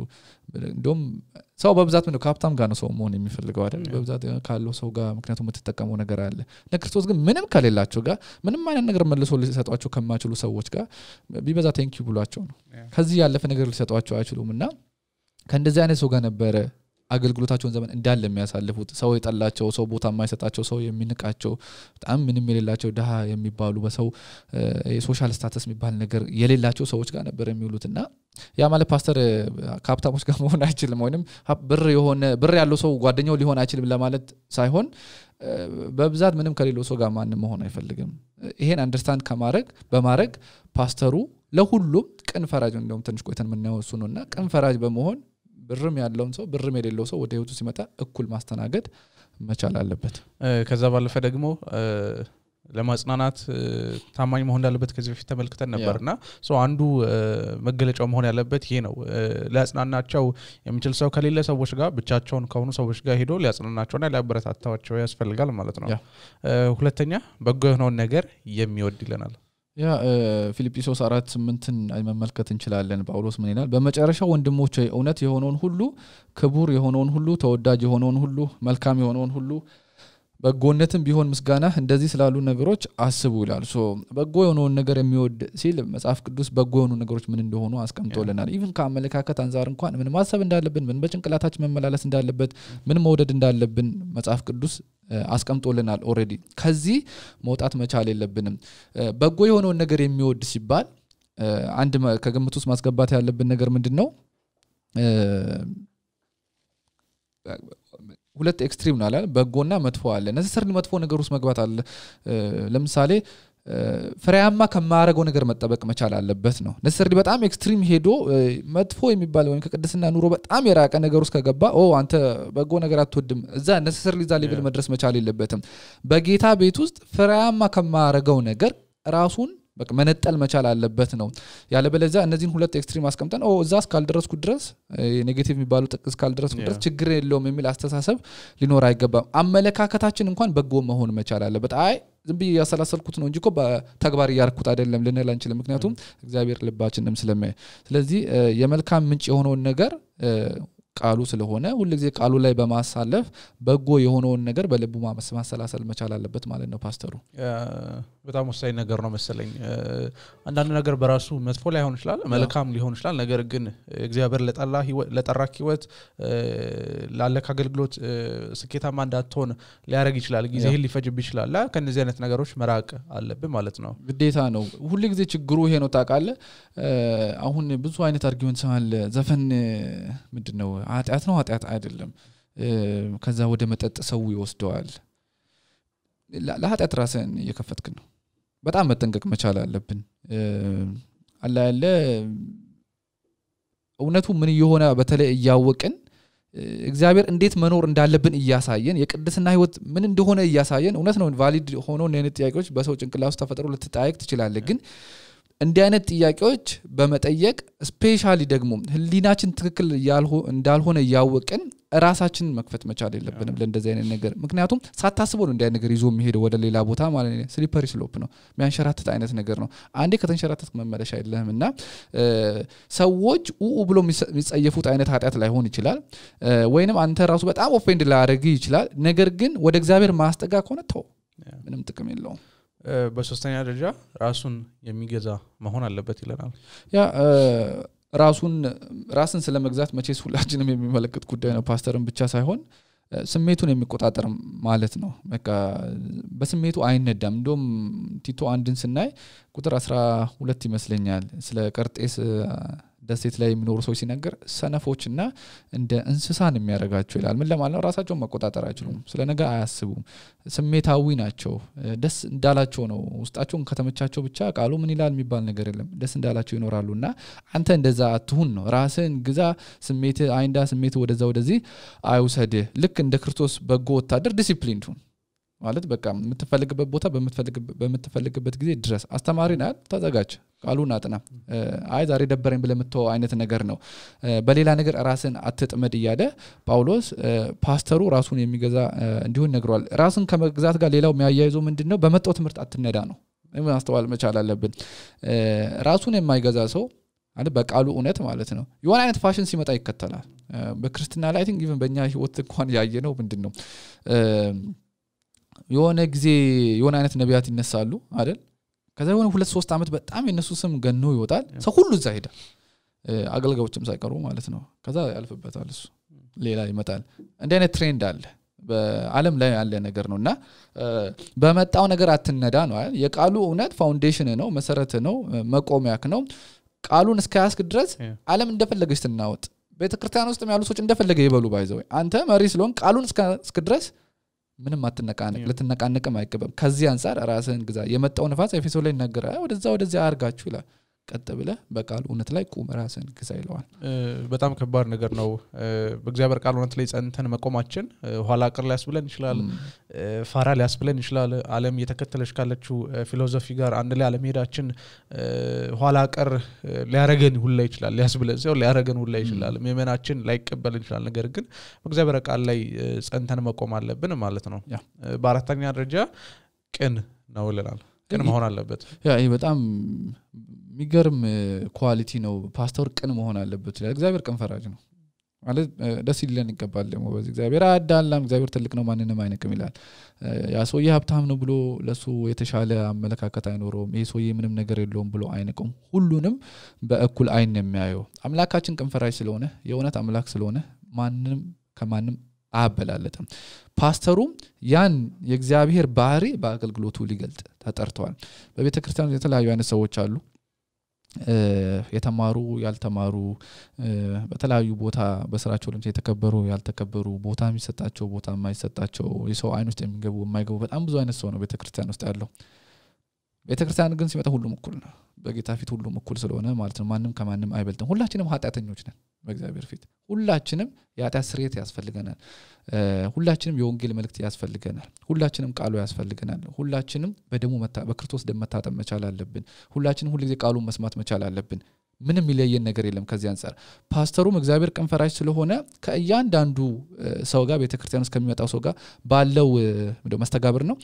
እንደውም ሰው በብዛት ነው ካፕታም ጋር ነው ሰው መሆን የሚፈልገው አይደል በብዛት ካለው ሰው ጋር ምክንያቱም የምትጠቀመው ነገር አለ ለክርስቶስ ግን ምንም ከሌላቸው ጋር ምንም አይነት ነገር መልሶ ሊሰጧቸው ከማይችሉ ሰዎች ጋር ቢበዛ ቴንኪው ብሏቸው ነው ከዚህ ያለፈ ነገር ሊሰጧቸው አይችሉምና ከእንደዚህ አይነት ሰው ጋር ነበር አገልግሎታቸውን ዘመን እንዳለ የሚያሳልፉት ሰው የጠላቸው ሰው ቦታ የማይሰጣቸው ሰው የሚንቃቸው በጣም ምንም የሌላቸው ደሃ የሚባሉ በሰው የሶሻል ስታተስ የሚባል ነገር የሌላቸው ሰዎች ጋር ነበር የሚውሉትና ያ ማለት ፓስተር ካፕታሞች ጋር መሆን አይችልም ወይንም ብር ያለው ሰው ጓደኛው ሊሆን አይችልም ለማለት ሳይሆን በብዛት ምንም ከሌለው ሰው ጋር ማንም መሆን አይፈልግም ይሄን አንደርስታንድ በማድረግ ፓስተሩ ለሁሉም ቅን ፈራጅ እንደውም ትንሽ ቆይተን ምናየው እሱ ነውና ቅን ፈራጅ በመሆን ብርም ያለውን ሰው ብርም የሌለው ሰው ወደ ህይወቱ ሲመጣ እኩል ማስተናገድ መቻል አለበት ከዛ ባለፈ ደግሞ ለማጽናናት ታማኝ መሆን እንዳለበት ከዚህ በፊት ተመልክተን ነበርና አንዱ መገለጫው መሆን ያለበት ይሄ ነው ሊያጽናናቸው የሚችል ሰው ከሌለ ሰዎች ጋር ብቻቸውን ከሆኑ ሰዎች ጋር ሄዶ ሊያጽናናቸውና ሊያበረታታቸው ያስፈልጋል ማለት ነው ሁለተኛ በጎ የሆነውን ነገር የሚወድ ይለናል ያ ፊልጵስዩስ 4:8ን መመልከት እንችላለን ጳውሎስ ምን ይላል በመጨረሻው ወንድሞቼ እውነት የሆነውን ሁሉ ክቡር የሆነውን ሁሉ ተወዳጅ የሆነውን ሁሉ መልካም የሆነውን ሁሉ በጎነትም ቢሆን ምስጋና እንደዚህ ስላሉ ነገሮች አስቡ ይላል በጎ የሆነውን ነገር የሚወድ ሲል መጽሐፍ ቅዱስ በጎ የሆኑ ነገሮች ምን እንደሆኑ አስቀምጦልናል ኢቭን ከአመለካከት አንፃር እንኳን ምን ማሰብ እንዳለብን ምን በጭንቅላታችን መመላለስ እንዳለበት ምን መውደድ እንዳለብን መጽሐፍ ቅዱስ አስቀምጦልናል ኦሬዲ ከዚህ መውጣት መቻል የለብንም በጎ የሆነውን ነገር የሚወድ ሲባል አንድ ከግምት ውስጥ ማስገባት ያለብን ነገር ምንድነው ሁለት ኤክስትሪም ነው አይደል በጎና መጥፎ አለ necessarily መጥፎ ነገር ውስጥ መግባት አለ ለምሳሌ ፍሬያማ ከማያረገው ነገር መጠበቅ መቻል አለበት ነው necessarily በጣም ኤክስትሪም ሄዶ መጥፎ የሚባል ወይ ከቅድስና ኑሮ በጣም የራቀ ነገር ውስጥ ከገባ አንተ በጎ ነገር አትወድም እዛ necessarily ዛ ሌቭል መድረስ መቻል የለበትም በጌታ ቤት ውስጥ ፍሬያማ ከማያረገው ነገር ራሱን በቃ መነጠል መቻል አለበት ነው ያለበለዚያ እነዚህን ሁለት ኤክስትሪም አስቀምጠን እዛ እስካልደረስኩ ድረስ ኔጌቲቭ የሚባሉ ጥቅስ ካልደረስኩ ድረስ ችግር የለውም የሚል አስተሳሰብ ሊኖር አይገባም አመለካከታችን እንኳን በጎ መሆን መቻል አለበት ዝም ብዬ ያሰላሰልኩት ነው እንጂ እኮ በተግባር ያርኩት አይደለም ልንል አንችልም ምክንያቱም እግዚአብሔር ልባችንንም ስለማይ ስለዚህ የመልካም ምንጭ የሆነውን ነገር ቃሉ ስለሆነ ሁሉ ጊዜ ቃሉ ላይ በማሳለፍ በጎ የሆነውን ነገር በልቡ ማሰላሰል መቻል አለበት ማለት ነው ፓስተሩ በጣም ወሳኝ ነገር ነው መሰለኝ አንዳንድ ነገር በራሱ መጥፎ ላይ ሆን ይችላል መልካም ሊሆን ይችላል ነገር ግን እግዚአብሔር ለጠራክ ህይወት ላለካ አገልግሎት ስኬታማ እንዳትሆን ሊያረግ ይችላል ጊዜህን ሊፈጅብ ይችላል ከነዚህ አይነት ነገሮች መራቅ አለብን ማለት ነው ግዴታ ነው ሁሉ ጊዜ ችግሩ ይሄ ነው ታውቃለህ አሁን ብዙ አይነት አርጊውመንት ሰማል ዘፈን ምንድነው ኃጢአት ነው ኃጢአት አይደለም ከዛ ወደ መጠጥ ሰው ይወስደዋል ለኃጢአት ራስን እየከፈትክ ነው በጣም መጠንቀቅ መቻል አለብን አላ ያለ እውነቱ ምን ይሆነ በተለይ ያወቅን እግዚአብሔር እንዴት መኖር እንዳለብን እያሳየን የቅድስና ህይወት ምን እንደሆነ እያሳየን እውነት ነው ቫሊድ ሆኖ እነዚህ ጥያቄዎች በሰው ጭንቅላት ውስጥ ተፈጥሮ ልትጠይቅ ትችላለህ ግን እንዲህ አይነት ጥያቄዎች በመጠየቅ ስፔሻሊ ደግሞ ህሊናችን ትክክል እንዳልሆነ ያወቅን ራሳችን መክፈት መቻል የለብንም ለእንደዚህ አይነት ነገር ምክንያቱም ሳታስበው ነው እንዲህ አይነት ነገር ይዞ የሚሄደው ወደ ሌላ ቦታ ማለት ነው ስሊፐሪ ስሎፕ ነው የሚያንሸራትት አይነት ነገር ነው አንዴ ከተንሸራተትክ መመለሻ የለህምና ሰዎች ብሎ የሚጸየፉት አይነት ኃጢአት ላይ ሆን ይችላል ወይንም አንተ ራሱ በጣም ኦፌንድ ላያደርግ ይችላል ነገር ግን ወደ እግዚአብሔር ማስጠጋ ከሆነ ተው ምንም ጥቅም የለውም በሶስተኛ ደረጃ ራሱን የሚገዛ መሆን አለበት ይለናል ያ ራስን ስለመግዛት መቼስ ሁላችንም የሚመለከት ጉዳይ ነው ፓስተርን ብቻ ሳይሆን ስሜቱን የሚቆጣጠር ማለት ነው በቃ በስሜቱ አይነዳም እንደም ቲቶ አንድን ስናይ ቁጥር 12 ይመስለኛል ስለ ቀርጤስ ደሴት ላይ የሚኖሩ ሰዎች ሲነገር ሰነፎችና እንደ እንስሳን የሚያረጋቸው ይላል ምን ለማለት ነው ራሳቸውን መቆጣጠር አይችሉም ስለ ነገ አያስቡም ስሜታዊ ናቸው ደስ እንዳላቸው ነው ውስጣቸውን ከተመቻቸው ብቻ ቃሉ ምን ይላል የሚባል ነገር የለም ደስ እንዳላቸው ይኖራሉና አንተ እንደዛ አትሁን ነው ራስን ግዛ ስሜት አይንዳ ስሜት ወደዚህ አይውሰድ ልክ እንደ ክርስቶስ በጎ ወታደር ዲሲፕሊን ሁን ማለት በቃ የምትፈልግበት ቦታ በምትፈልግበት ጊዜ ድረስ አስተማሪ ናት ተዘጋጅ ቃሉን አጥና አይ ዛሬ ደበረኝ ብለምተው አይነት ነገር ነው በሌላ ነገር ራስን አትጥመድ ይያደ ጳውሎስ ፓስተሩ ራሱን የሚገዛ እንዲሆን ነግሯል ራስን ከመግዛት ጋር ሌላው የሚያያይዘው ምንድነው በመጣው ትምህርት አትነዳ ነው ማስተዋል መቻል አለብን ራሱን የማይገዛ ሰው አንተ በቃሉ እውነት ማለት ነው የሆነ አይነት ፋሽን ሲመጣ ይከተላል በክርስቲና ላይ አይ ቲንክ ኢቭን በእኛ ህይወት እንኳን ያየነው ምንድነው የሆነ ጊዜ የሆነ አይነት ነቢያት ይነሳሉ አይደል ከዛ የሆነ 2-3 አመት በጣም የነሱ ስም ገኖ ይወጣል ሰው ሁሉ እዛ ሄዳ አገልጋዮችም ሳይቀሩ ማለት ነው ከዛ ያልፍበታል እሱ ሌላ ይመጣል እንደ አይነት ትሬንድ አለ በአለም ላይ ያለ ነገር ነውና በመጣው ነገር አትነዳ ነው አይደል የቃሉ እውነት ፋውንዴሽን ነው መሰረት ነው መቆሚያክ ነው ቃሉን እስከያስክ ድረስ ዓለም እንደፈለገች ትናወጥ ቤተክርስቲያን ውስጥ ያሉ ሰዎች እንደፈለገ ይበሉ ባይዘው አንተ መሪ ስለሆን ቃሉን እስከ ድረስ ምንም አትነቃነቅ ለተነቃነቅም አይቀበም ከዚህ አንፃር ራስህን ግዛ የመጣው ንፋስ ኤፌሶን ላይ ይናገራል ወደዛ አርጋችሁ ይላል ቀጥ ብለ በቃል እውነት ላይ ቁም ራስህን ግዛ ይለዋል በጣም ከባድ ነገር ነው በእግዚአብሔር ቃል እውነት ላይ ጸንተን መቆማችን ኋላ ቀር ሊያስብለን ይችላል ፋራ ሊያስብለን ይችላል ዓለም እየተከተለች ካለችው ፊሎሶፊ ጋር አንድ ላይ ዓለም ሄዳችን ኋላ ቀር ሊያረገን ሁላ ይችላል ሊያስብለን ሲሆን ሊያረገን ሁላ ይችላል መመናችን ላይቀበልን ይችላል ነገር ግን በእግዚአብሔር ቃል ላይ ጸንተን መቆም አለብን ማለት ነው በአራተኛ ደረጃ ቅን ነው ይላል ቅን መሆን አለበት ያ ይሄ በጣም የሚገርም ኳሊቲ ነው ፓስተር ቅን መሆን አለበት ይላል እግዚአብሔር ቅን ፈራጅ ነው ማለት ደስ ይለን ይገባል ደግሞ በዚህ እግዚአብሔር አዳላም እግዚአብሔር ትልቅ ነው ማንንም አይነቅም ይላል ያ ሰውዬ ሀብታም ነው ብሎ ለሱ የተሻለ አመለካከት አይኖርም ይሄ ሰውዬ ምንም ነገር የለውም ብሎ አይነቅም ሁሉንም በእኩል አይን የሚያየው አምላካችን ቅን ፈራጅ ስለሆነ የእውነት አምላክ ስለሆነ ማንንም ከማንም አበላለጥም ፓስተሩም ያን የእግዚአብሔር ባህሪ በአገልግሎቱ ሊገልጥ ተጠርቷል በቤተክርስቲያን የተለያዩ አይነት ሰዎች አሉ የተማሩ ያልተማሩ በተለያዩ ቦታ በስራቸው ለምሳሌ የተከበሩ ያልተከበሩ ቦታ የሚሰጣቸው ቦታ የማይሰጣቸው የሰው አይን ውስጥ የሚገቡ የማይገቡ በጣም ብዙ አይነት ሰው ነው ቤተክርስቲያን ውስጥ ያለው ቤተክርስቲያን ግን ሲመጣ ሁሉም እኩል ነው በጌታ ፊት ሁሉም እኩል ስለሆነ ማለት ነው ማንንም ከማንም አይበልጥም ሁላችንም ኃጢአተኞች ነን በእግዚአብሔር ፊት ሁላችንም የኃጢአት ስርየት ያስፈልገናል ሁላችንም የወንጌል መልእክት ያስፈልገናል ሁላችንም ቃሉ ያስፈልገናል ሁላችንም በክርስቶስ ደም መታጠብ መቻል አለብን ሁላችንም ሁሉ ጊዜ ቃሉን መስማት መቻል አለብን ምንም ይለየን ነገር የለም ከዚህ አንፃር ፓስተሩም እግዚአብሔር ቅን ፈራጅ ስለሆነ ከእያንዳንዱ ሰው ጋር ቤተክርስቲያን ውስጥ ከሚመጣው ሰው ጋር ባለው መስተጋብር ነው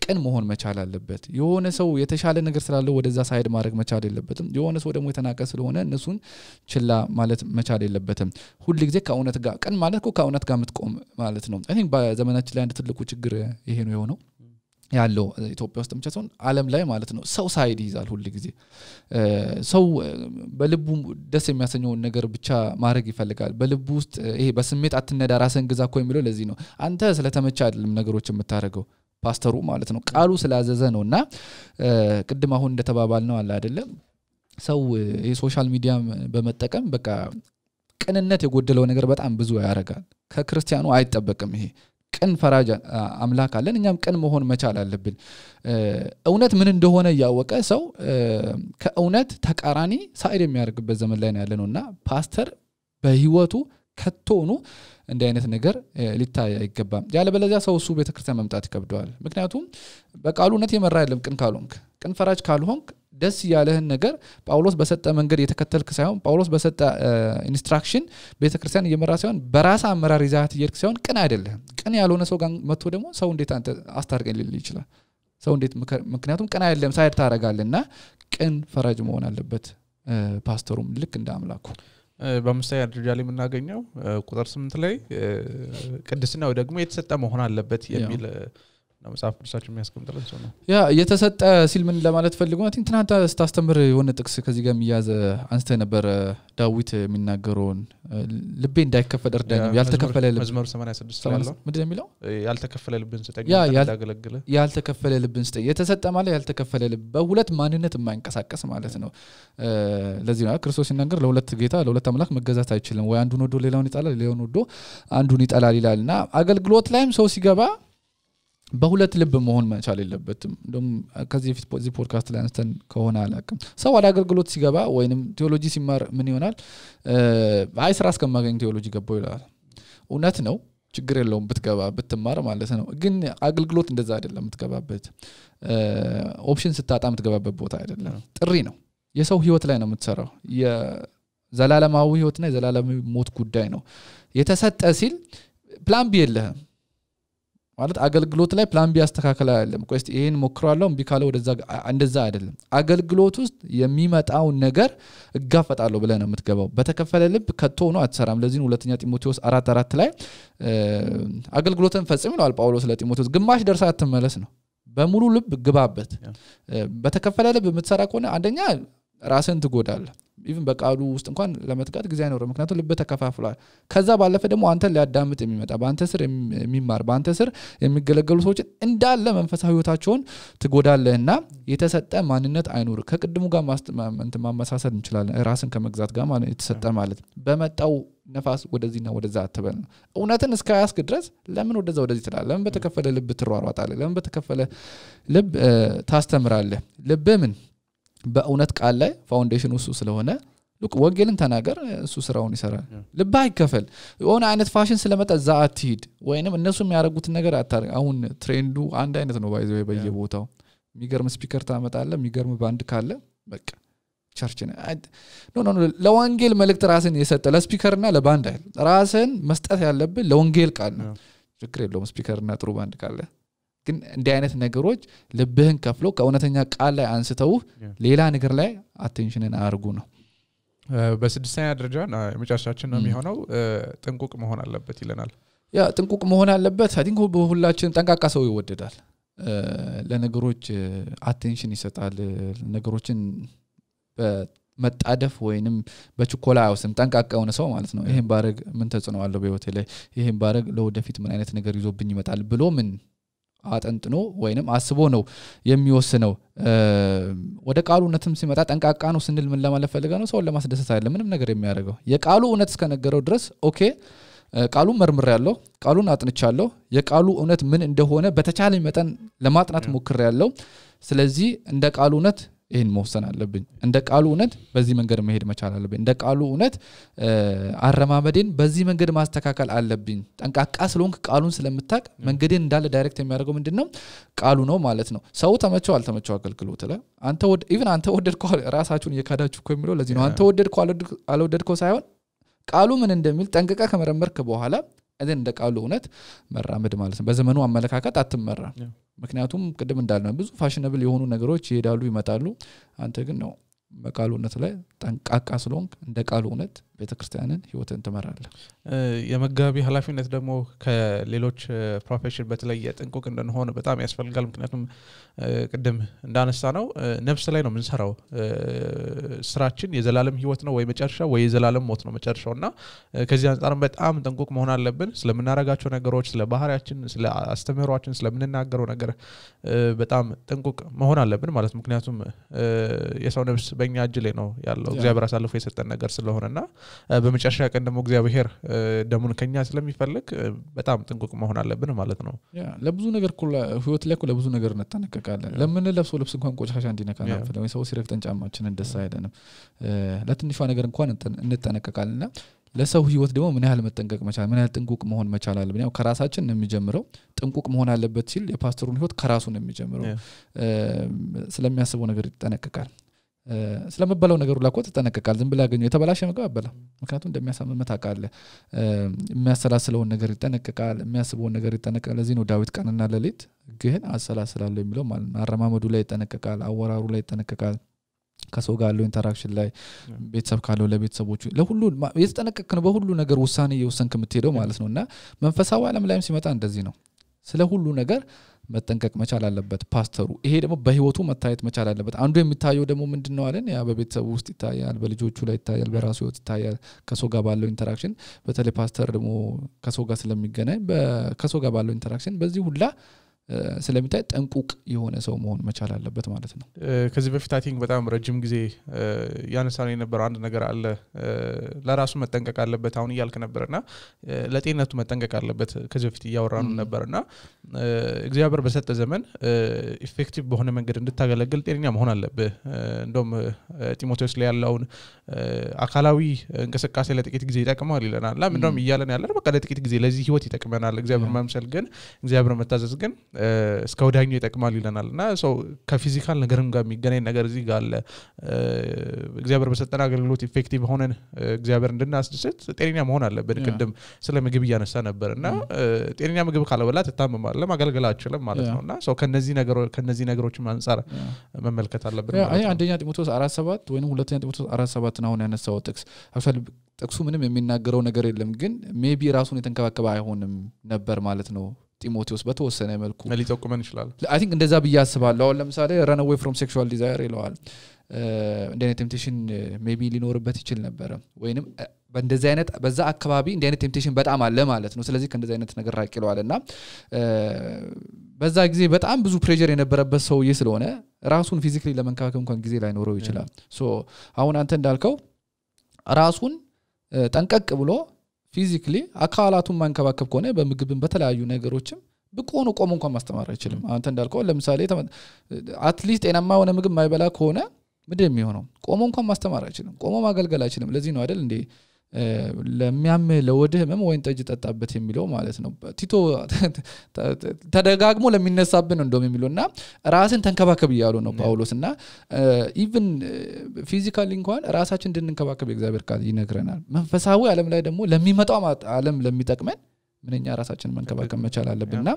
ቅን መሆን መቻል አለበት የሆነ ሰው የተሻለ ነገር ስላለው ወደዛ ሳይድ ማድረግ መቻል የለበትም የሆነ ሰው ደግሞ የተናቀ ስለሆነ እነሱን ችላ ማለት መቻል የለበትም ሁሉ ጊዜ ከእውነት ጋር ቅን ማለት ከእውነት ጋር ምትቆም ማለት ነው አይ ቲንክ በዘመናችን ላይ አንድ ትልቁ ችግር ይሄ ነው የሆነው ያለው ኢትዮጵያ ውስጥ ብቻ ዓለም ላይ ማለት ነው ሰው ሳይድ ይዛል ሁሉ ጊዜ ሰው በልቡ ደስ የሚያሰኘው ነገር ብቻ ማድረግ ይፈልጋል በልቡ ውስጥ ይሄ በስሜት አትነዳ ራስን ግዛ እኮ የሚለው ለዚህ ነው አንተ ስለተመቻ አይደለም ነገሮችን የምታረገው ፓስተሩ ማለት ነው ቃሉ ስላዘዘ ነውና ቅድም አሁን እንደተባባል ነው አለ አይደለም ሰው የሶሻል ሚዲያ በመጠቀም በቃ ቅንነት የጎደለው ነገር በጣም ብዙ ያረጋል ከክርስቲያኑ አይጠበቅም ይሄ ቅን ፈራጅ አምላክ አለን እኛም ቅን መሆን መቻል አለብን እውነት ምን እንደሆነ ያወቀ ሰው ከእውነት ተቃራኒ ሳይድ የሚያርግበት ዘመን ላይ ነው ያለነውና ፓስተር በህይወቱ ከቶኑ እንደ አይነት ነገር ሊታይ አይገባም ያለበለዚያ ሰው እሱ ቤተክርስቲያን መምጣት ይከብደዋል ምክንያቱም በቃሉነት የመራ አይደለም ቅን ካልሆንክ ቅን ፈራጅ ካልሆንክ ደስ ያለህን ነገር ጳውሎስ በሰጠ መንገድ የተከተልክ ሳይሆን ጳውሎስ በሰጠ ኢንስትራክሽን ቤተክርስቲያን እየመራ ሳይሆን በራስ አመራር ይዛት ይርክ ሳይሆን ቅን አይደለም ቅን ያልሆነ ሰው ጋር መጥቶ ደግሞ ሰው እንዴት አንተ አስታርቀኝ ሊል ይችላል ሰው እንዴት ምክንያቱም ቅን አይደለም ሳይድ ታረጋለና ቅን ፈራጅ መሆን አለበት ፓስተሩም ልክ እንደ አምላኩ በመሳያ ደረጃ ላይ የምናገኘው ቁጥር 8 ላይ ቅድስናው ደግሞ የተሰጠ መሆን አለበት የሚል መጽሐፍ ቅዱሳችን የሚያስቀምጥልን ሰው ነው ያ የተሰጠ ሲል ምን ለማለት ፈልጎ ነው ትናንት ስታስተምር የሆነ ጥቅስ ከዚህ ጋር የሚያዘ አንስተ ነበር ዳዊት የሚናገረውን ልቤ እንዳይከፈል እርዳኝ ያልተከፈለ ልብ መዝሙር 86 ያለው ምንድነው የሚለው ያልተከፈለ ልብን ስጠኝ እንዳገለግለ ያልተከፈለ ልብን ስጠኝ የተሰጠ ማለት ያልተከፈለ ልብ በሁለት ማንነት የማይንቀሳቀስ ማለት ነው ለዚህ ነው ክርስቶስ ሲናገር ለሁለት ጌታ ለሁለት አምላክ መገዛት አይችልም ወይ አንዱን ወዶ ሌላውን ይጣላል ሌላውን ወዶ አንዱን ይጣላል ይላልና አገልግሎት ላይም ሰው ሲገባ በሁለት ልብ መሆን መቻል የለበትም እንደም ከዚህ ፊት ፖዚ ፖድካስት ላይ አንስተን ከሆነ አላቅም ሰው ወደ አገልግሎት ሲገባ ወይንም ቴዎሎጂ ሲማር ምን ይሆናል አይ ስራ እስከማገኝ ቴዎሎጂ ገባው ይላል እውነት ነው ችግር የለውም ብትገባ ብትማር ማለት ነው ግን አገልግሎት እንደዛ አይደለም የምትገባበት ኦፕሽን ስታጣ የምትገባበት ቦታ አይደለም ጥሪ ነው የሰው ህይወት ላይ ነው የምትሰራው የዘላለማዊ ህይወትና የዘላለማዊ ሞት ጉዳይ ነው የተሰጠ ሲል ፕላን ቢ የለህም ማለት አገልግሎት ላይ ፕላን ቢ ያስተካከለ አይደለም ቆይስ ይሄን ሞክራለሁ እምቢ ካለ ወደዛ እንደዛ አይደለም አገልግሎት ውስጥ የሚመጣው ነገር እጋፈጣለሁ ብለህ ነው የምትገባው በተከፈለ ልብ ከቶ ነው አትሰራም ለዚህ ሁለተኛ ጢሞቴዎስ 4:4 ላይ አገልግሎትን ፈጽም ይላል ጳውሎስ ለጢሞቴዎስ ግማሽ ደርሳ አትመለስ ነው በሙሉ ልብ ግባበት በተከፈለ ልብ የምትሰራ ከሆነ አንደኛ ራስን ትጎዳለህ even በቃሉ ውስጥ እንኳን ለመትጋት ጊዜ አይኖርም ምክንያቱም ልብ ተከፋፍሏል ከዛ ባለፈ ደግሞ አንተ ሊያዳምጥ የሚመጣ በአንተ ስር የሚማር በአንተ ስር የሚገለገሉ ሰዎች እንዳለ መንፈሳዊ ህይወታቸውን ትጎዳለህና የተሰጠ ማንነት አይኖር ከቅድሙ ጋር ማመሳሰል እንችላለን ራስን ከመግዛት ጋር ማለት የተሰጠ ማለት በመጣው ነፋስ ወደዚህና ወደዛ አትበል እውነትን እስከያስክ ድረስ ለምን ወደዚህ ትላለህ ለምን በተከፈለ ልብ ትሯሯጣለህ ለምን በተከፈለ ልብ ታስተምራለህ ልብ ምን በእውነት ቃል ላይ ፋውንዴሽኑ እሱ ስለሆነ ሉክ ወንጌልን ተናገር እሱ ስራውን ይሰራል ልብ አይከፈል የሆነ አይነት ፋሽን ስለመጣ እዛ አትሂድ ወይንም እነሱ የሚያደርጉት ነገር አታርግ አሁን ትሬንዱ አንድ አይነት ነው ባይዘው በየቦታው የሚገርም ስፒከር ታመጣለህ የሚገርም ባንድ ካለ በቃ ቸርች ነው ኖ ለወንጌል መልእክት ራስን የሰጠ ለስፒከርና ለባንድ አይደል ራስን መስጠት ያለብህ ለወንጌል ቃል ነው ችግር የለውም ስፒከርና ጥሩ ባንድ ካለ ግን እንዲህ አይነት ነገሮች ልብህን ከፍሎ ከእውነተኛ ቃል ላይ አንስተው ሌላ ነገር ላይ አቴንሽንን አርጉ ነው በስድስተኛ ደረጃ መጨረሻችን ነው የሚሆነው ጥንቁቅ መሆን አለበት ይለናል ያ ጥንቁቅ መሆን አለበት አይ ቲንክ ሁላችን ጠንቃቃ ሰው ይወደዳል ለነገሮች አቴንሽን ይሰጣል ነገሮችን በመጣደፍ ወይንም በችኮላ አይወስም ጠንቃቃ ሆነ ሰው ማለት ነው ይሄን ባረግ ምን ተጽዕኖ አለው በህይወቴ ላይ ይሄን ባረግ ለወደፊት ምን አይነት ነገር ይዞብኝ ይመጣል ብሎ ምን አጠንጥኖ ወይንም አስቦ ነው የሚወስነው ወደ ቃሉ እውነትም ሲመጣ ጠንቃቃ ነው ስንል ምን ለማለት ፈልገ ነው ሰው ለማስደሰት አይደለም ምንም ነገር የሚያደርገው የቃሉ እውነት እስከነገረው ድረስ ኦኬ ቃሉን መርምሬያለሁ ቃሉን አጥንቻለሁ የቃሉ እውነት ምን እንደሆነ በተቻለኝ መጠን ለማጥናት ሞክሬያለሁ ስለዚህ እንደ ቃሉ እውነት ይሄን መወሰን አለብኝ እንደ ቃሉ እውነት በዚህ መንገድ መሄድ መቻል አለብኝ እንደ ቃሉ እውነት አረማመዴን በዚህ መንገድ ማስተካከል አለብኝ ጠንቃቃ ስለሆንክ ቃሉን ስለምታቅ መንገዴን እንዳለ ዳይሬክት የሚያደርገው ምንድነው ቃሉ ነው ማለት ነው ሰው ተመቸው አልተመቸው አገልግሎት ላይ አንተ ወደድከው ራሳችሁን የካዳችሁ እኮ የሚለው ለዚህ ነው አንተ ወደድከው አልወደድከው ሳይሆን ቃሉ ምን እንደሚል ጠንቅቀህ ከመረመርክ በኋላ እዚህ እንደ ቃሉ እውነት መራመድ ማለት ነው በዘመኑ አመለካከት አትመራ ምክንያቱም ቅድም እንዳልነው ብዙ ፋሽነብል የሆኑ ነገሮች ይሄዳሉ ይመጣሉ አንተ ግን ነው በቃሉ እውነት ላይ ጠንቃቃ ስለሆንክ እንደ ቃሉ እውነት ቤተክርስቲያንን ህይወትን ትመራለህ የመጋቢ ኃላፊነት ደግሞ ከሌሎች ፕሮፌሽን በተለየ ጥንቁቅ እንደሆነ በጣም ያስፈልጋል ምክንያቱም ቅድም እንዳነሳ ነው ነፍስ ላይ ነው የምንሰራው ስራችን የዘላለም ህይወት ነው ወይ መጨረሻ ወይ የዘላለም ሞት ነው መጨረሻውና ከዚህ አንፃር በጣም ጥንቁቅ መሆን አለብን ስለምናረጋቸው ነገሮች ስለ ባህሪያችን ስለ አስተምህሮአችን ስለምንናገረው ነገር በጣም ጥንቁቅ መሆን አለብን ማለት ምክንያቱም የሰው ነፍስ በእኛ እጅ ላይ ነው ያለው እግዚአብሔር አሳልፎ የሰጠን ነገር ስለሆነና በመጨረሻ ቀን ደግሞ እግዚአብሔር ደሙን ከኛ ስለሚፈልግ በጣም ጥንቁቅ መሆን አለብን ማለት ነው ያ ለብዙ ነገር ህይወት ላይ ለብዙ ነገር እንጠነቀቃለን ለምን ለብሶ ልብስ እንኳን ቆሻሻ እንዲነካና ፈለወ ሰው ሲረግጠን ጫማችንን ደስ አይደንም ለትንሿ ነገር እንኳን እንጠነቀቃለንና ለሰው ህይወት ደግሞ ምን ያህል መጠንቀቅ መቻል ምን ያህል ጥንቁቅ መሆን መቻል አለብን ያው ከራሳችን ነው የሚጀምረው ጥንቁቅ መሆን አለበት ሲል የፓስተሩን ህይወት ከራሱ ነው የሚጀምረው ስለሚያስበው ነገር ይጠነቀቃል ስለመበላው ነገር ሁሉ አቆጥ ተጠነቀቃል ዝም ብላ ያገኘው የተበላሸ ምግብ አበላ ምክንያቱም እንደሚያሳምመት አቃለ የሚያሰላስለው ነገር ይጠነቀቃል የሚያስበው ነገር ይጠነቀቃል ለዚህ ነው ዳዊት ቀንና ሌሊት ግን አሰላስላለሁ የሚለው ማለት ነው አረማመዱ ላይ ይጠነቀቃል አወራሩ ላይ ይጠነቀቃል ከሰው ጋር ያለው ኢንተራክሽን ላይ ቤተሰብ ካለው ለቤተሰቦቹ ለሁሉ የተጠነቀቀ ነው በሁሉ ነገር ውሳኔ የወሰንክ የምትሄደው ማለት ነውና መንፈሳዊ ዓለም ላይም ሲመጣ እንደዚህ ነው ስለ ሁሉ ነገር መጠንቀቅ መቻል አለበት ፓስተሩ ይሄ ደግሞ በህይወቱ መታየት መቻል አለበት አንዱ የሚታየው ደግሞ ምንድነው አለን ያ በቤተሰቡ ውስጥ ይታያል በልጆቹ ላይ ይታያል በራሱ ህይወት ይታያል ከሰው ጋር ባለው ኢንተራክሽን በተለይ ፓስተር ደግሞ ከሰው ጋር ስለሚገናኝ ከሰው ጋር ባለው ኢንተራክሽን በዚህ ሁላ ስለሚታይ ጠንቁቅ የሆነ ሰው መሆን መቻል አለበት ማለት ነው ከዚህ በፊት አይ ቲንክ በጣም ረጅም ጊዜ ያነሳነው የነበረው አንድ ነገር አለ ለራሱ መጠንቀቅ አለበት አሁን ይያልክ ነበርና ለጤንነቱ መጠንቀቅ አለበት ከዚህ በፊት ያወራኑ ነበርና እግዚአብሔር በሰጠ ዘመን ኢፌክቲቭ በሆነ መንገድ እንድታገለግል ጤነኛ መሆን አለበት እንደውም ጢሞቴዎስ ላይ ያለውን አካላዊ እንቅስቃሴ ለጥቂት ጊዜ ይጠቅማል ይለናል ለምንድነው ይያለን ያለው በቃ ለጥቂት ጊዜ ለዚህ ህይወት ይጠቅመናል እግዚአብሔር መምሰል ግን እግዚአብሔር መታዘዝ ግን እስከ ወዳኛው ይጠቅማል ይለናልና ሰው ከፊዚካል ነገርም ጋር የሚገናኝ ነገር እዚህ ጋር አለ እግዚአብሔር በሰጠን አገልግሎት ኢፌክቲቭ ሆነን እግዚአብሔር እንድናስደስት ጤነኛ መሆን አለበት ቅድም ስለ ምግብ ያነሳ ነበርና ጤነኛ ምግብ ካለበላ ተታመማለ ማገልገል አትችልም ማለት ነውና ሰው ከነዚህ ነገሮች አንፃር መመልከት አለበት አይ አንደኛ ጢሞቴዎስ 4:7 ወይንም ሁለተኛ ጢሞቴዎስ 4:7 ነው ያነሳው ጥቅሱ ምንም የሚናገረው ነገር የለም ግን ሜቢ ራሱን የተንከባከበ አይሆንም ነበር ማለት ነው ጢሞቴዎስ በተወሰነ መልኩ ሊጠቁመን ይችላል አይ ቲንክ እንደዛ በያስባለሁ አሁን ለምሳሌ run away from sexual desire ይለዋል እንደኔ ቴምፕቴሽን ሜቢ ሊኖርበት ይችል ነበር ወይንም በእንደዚህ አይነት በዛ አካባቢ እንደ አይነት ቴምፕቴሽን በጣም አለ ማለት ነው ስለዚህ ከእንደዚህ አይነት ነገር ራቅ ይለዋልና በዛ ጊዜ በጣም ብዙ ፕሬሸር የነበረበት ሰውዬ ስለሆነ ራሱን ፊዚካሊ ለመንከባከብ እንኳን ጊዜ ላይ ኖረው ይችላል ሶ አሁን አንተ እንዳልከው ራሱን ጠንቀቅ ብሎ ፊዚካሊ አካላቱን ማንከባከብ ከሆነ በምግብም በተለያዩ ነገሮችም በቆኑ ቆሞ እንኳን ማስተማር አይችልም አንተ እንዳልከው ለምሳሌ አትሊስት ጤናማ ሆነ ምግብ ማይበላ ከሆነ ምንድነው የሚሆነው ቆሞ እንኳን ማስተማር አይችልም ቆሞ ማገልገል አይችልም ለዚህ ነው አይደል እንዴ ለሚያም ለወድህ ህመም ወይን ጠጅ ጠጣበት የሚለው ማለት ነው ቲቶ ተደጋግሞ ለሚነሳብን እንደም የሚለውና ራስን ተንከባከብ ይያሉ ነው ጳውሎስና ኢቭን ፊዚካሊ እንኳን ራሳችን እንድንከባከብ እግዚአብሔር ቃል ይነግረናል መንፈሳዊ ዓለም ላይ ደግሞ ለሚመጣው ዓለም ለሚጠቅመን ምንኛ ራሳችንን መንከባከብ መቻል አለብንና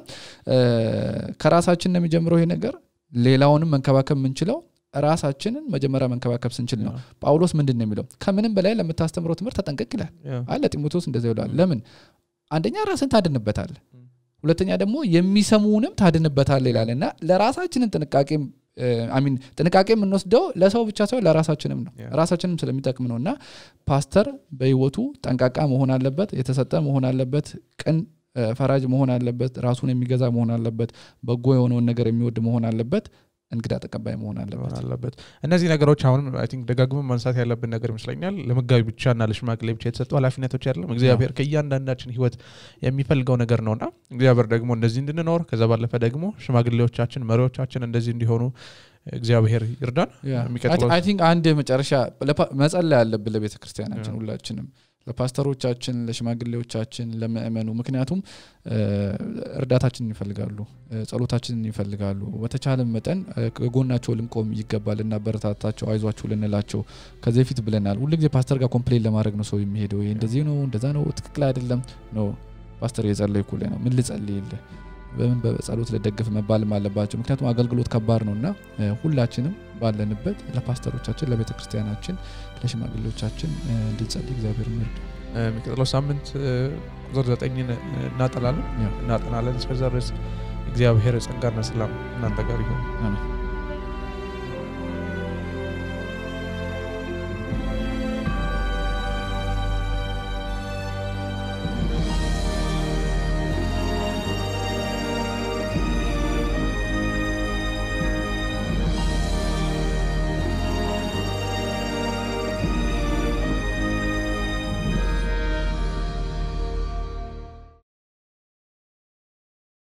ከራሳችን ነው የሚጀምረው ይሄ ነገር ሌላውንም መንከባከብ ምንችለው ራሳችንን መጀመሪያ መንከባከብ ስንችል ነው ጳውሎስ ምንድነው የሚለው ከምንም በላይ ለምታስተምረው ትምህርት ተጠንቀቅ ይላል አለ ጢሞቴዎስ እንደዛ ይላል ለምን አንደኛ ራስን ታድንበታል ሁለተኛ ደግሞ የሚሰሙንም ታድንበታል ይላልና ለራሳችንን ጥንቃቄ የምንወስደው ለሰው ብቻ ሳይሆን ለራሳችንም ነው ራሳችንም ስለሚጠቅም ነውና ፓስተር በህይወቱ ጠንቃቃ መሆን አለበት የተሰጠ መሆን አለበት ቅን ፈራጅ መሆን አለበት ራሱን የሚገዛ መሆን አለበት በጎ የሆነውን ነገር የሚወድ መሆን አለበት እንግዳ ተቀባይ መሆን አለበት እነዚህ ነገሮች አሁን አይ ቲንክ ደጋግመን ማንሳት ያለብን ነገር ይመስለኛል ለመጋቢ ብቻና ለሽማግሌ ብቻ የተሰጡ ኃላፊነቶች አይደለም እግዚአብሔር ከእያንዳንዳችን ህይወት የሚፈልገው ነገር ነውና እግዚአብሔር ደግሞ እንደዚህ እንድንኖር ከዛ ባለፈ ደግሞ ሽማግሌዎቻችን መሪዎቻችን እንደዚህ እንዲሆኑ እግዚአብሔር ይርዳን የሚቀጥለው አይ ቲንክ አንድ መጨረሻ መጸለይ ያለብን ለቤተክርስቲያናችን ሁላችንም ለፓስተሮቻችን ለሽማግሌዎቻችን ለምእመኑ ምክንያቱም እርዳታችንን ይፈልጋሉ ጸሎታችንን ይፈልጋሉ በተቻለ መጠን ከጎናቸው ልንቆም ይገባልና በረታታቸው አይዟችሁ ልንላቸው ከዚህ ፊት ብለናል ሁሉ ጊዜ ፓስተር ጋር ኮምፕሌን ለማድረግ ነው ሰው የሚሄደው ይሄ እንደዚህ ነው እንደዛ ነው ትክክል አይደለም ነው ፓስተር የጸለይኩ ላይ ነው ምን ልጸልይልህ በምን በጸሎት ለደግፍ መባልም አለባቸው ምክንያቱም አገልግሎት ከባድ ነውና ሁላችንም ባለንበት ለፓስተሮቻችን ለቤተክርስቲያናችን ለሽማግሌዎቻችን እንድንጸልይ እግዚአብሔር ይርዳ የሚቀጥለው ሳምንት ቁጥር 9 እናጠናለን እስከዛ ድረስ እግዚአብሔር ጸጋና ሰላም እናንተ ጋር ይሁን አሜን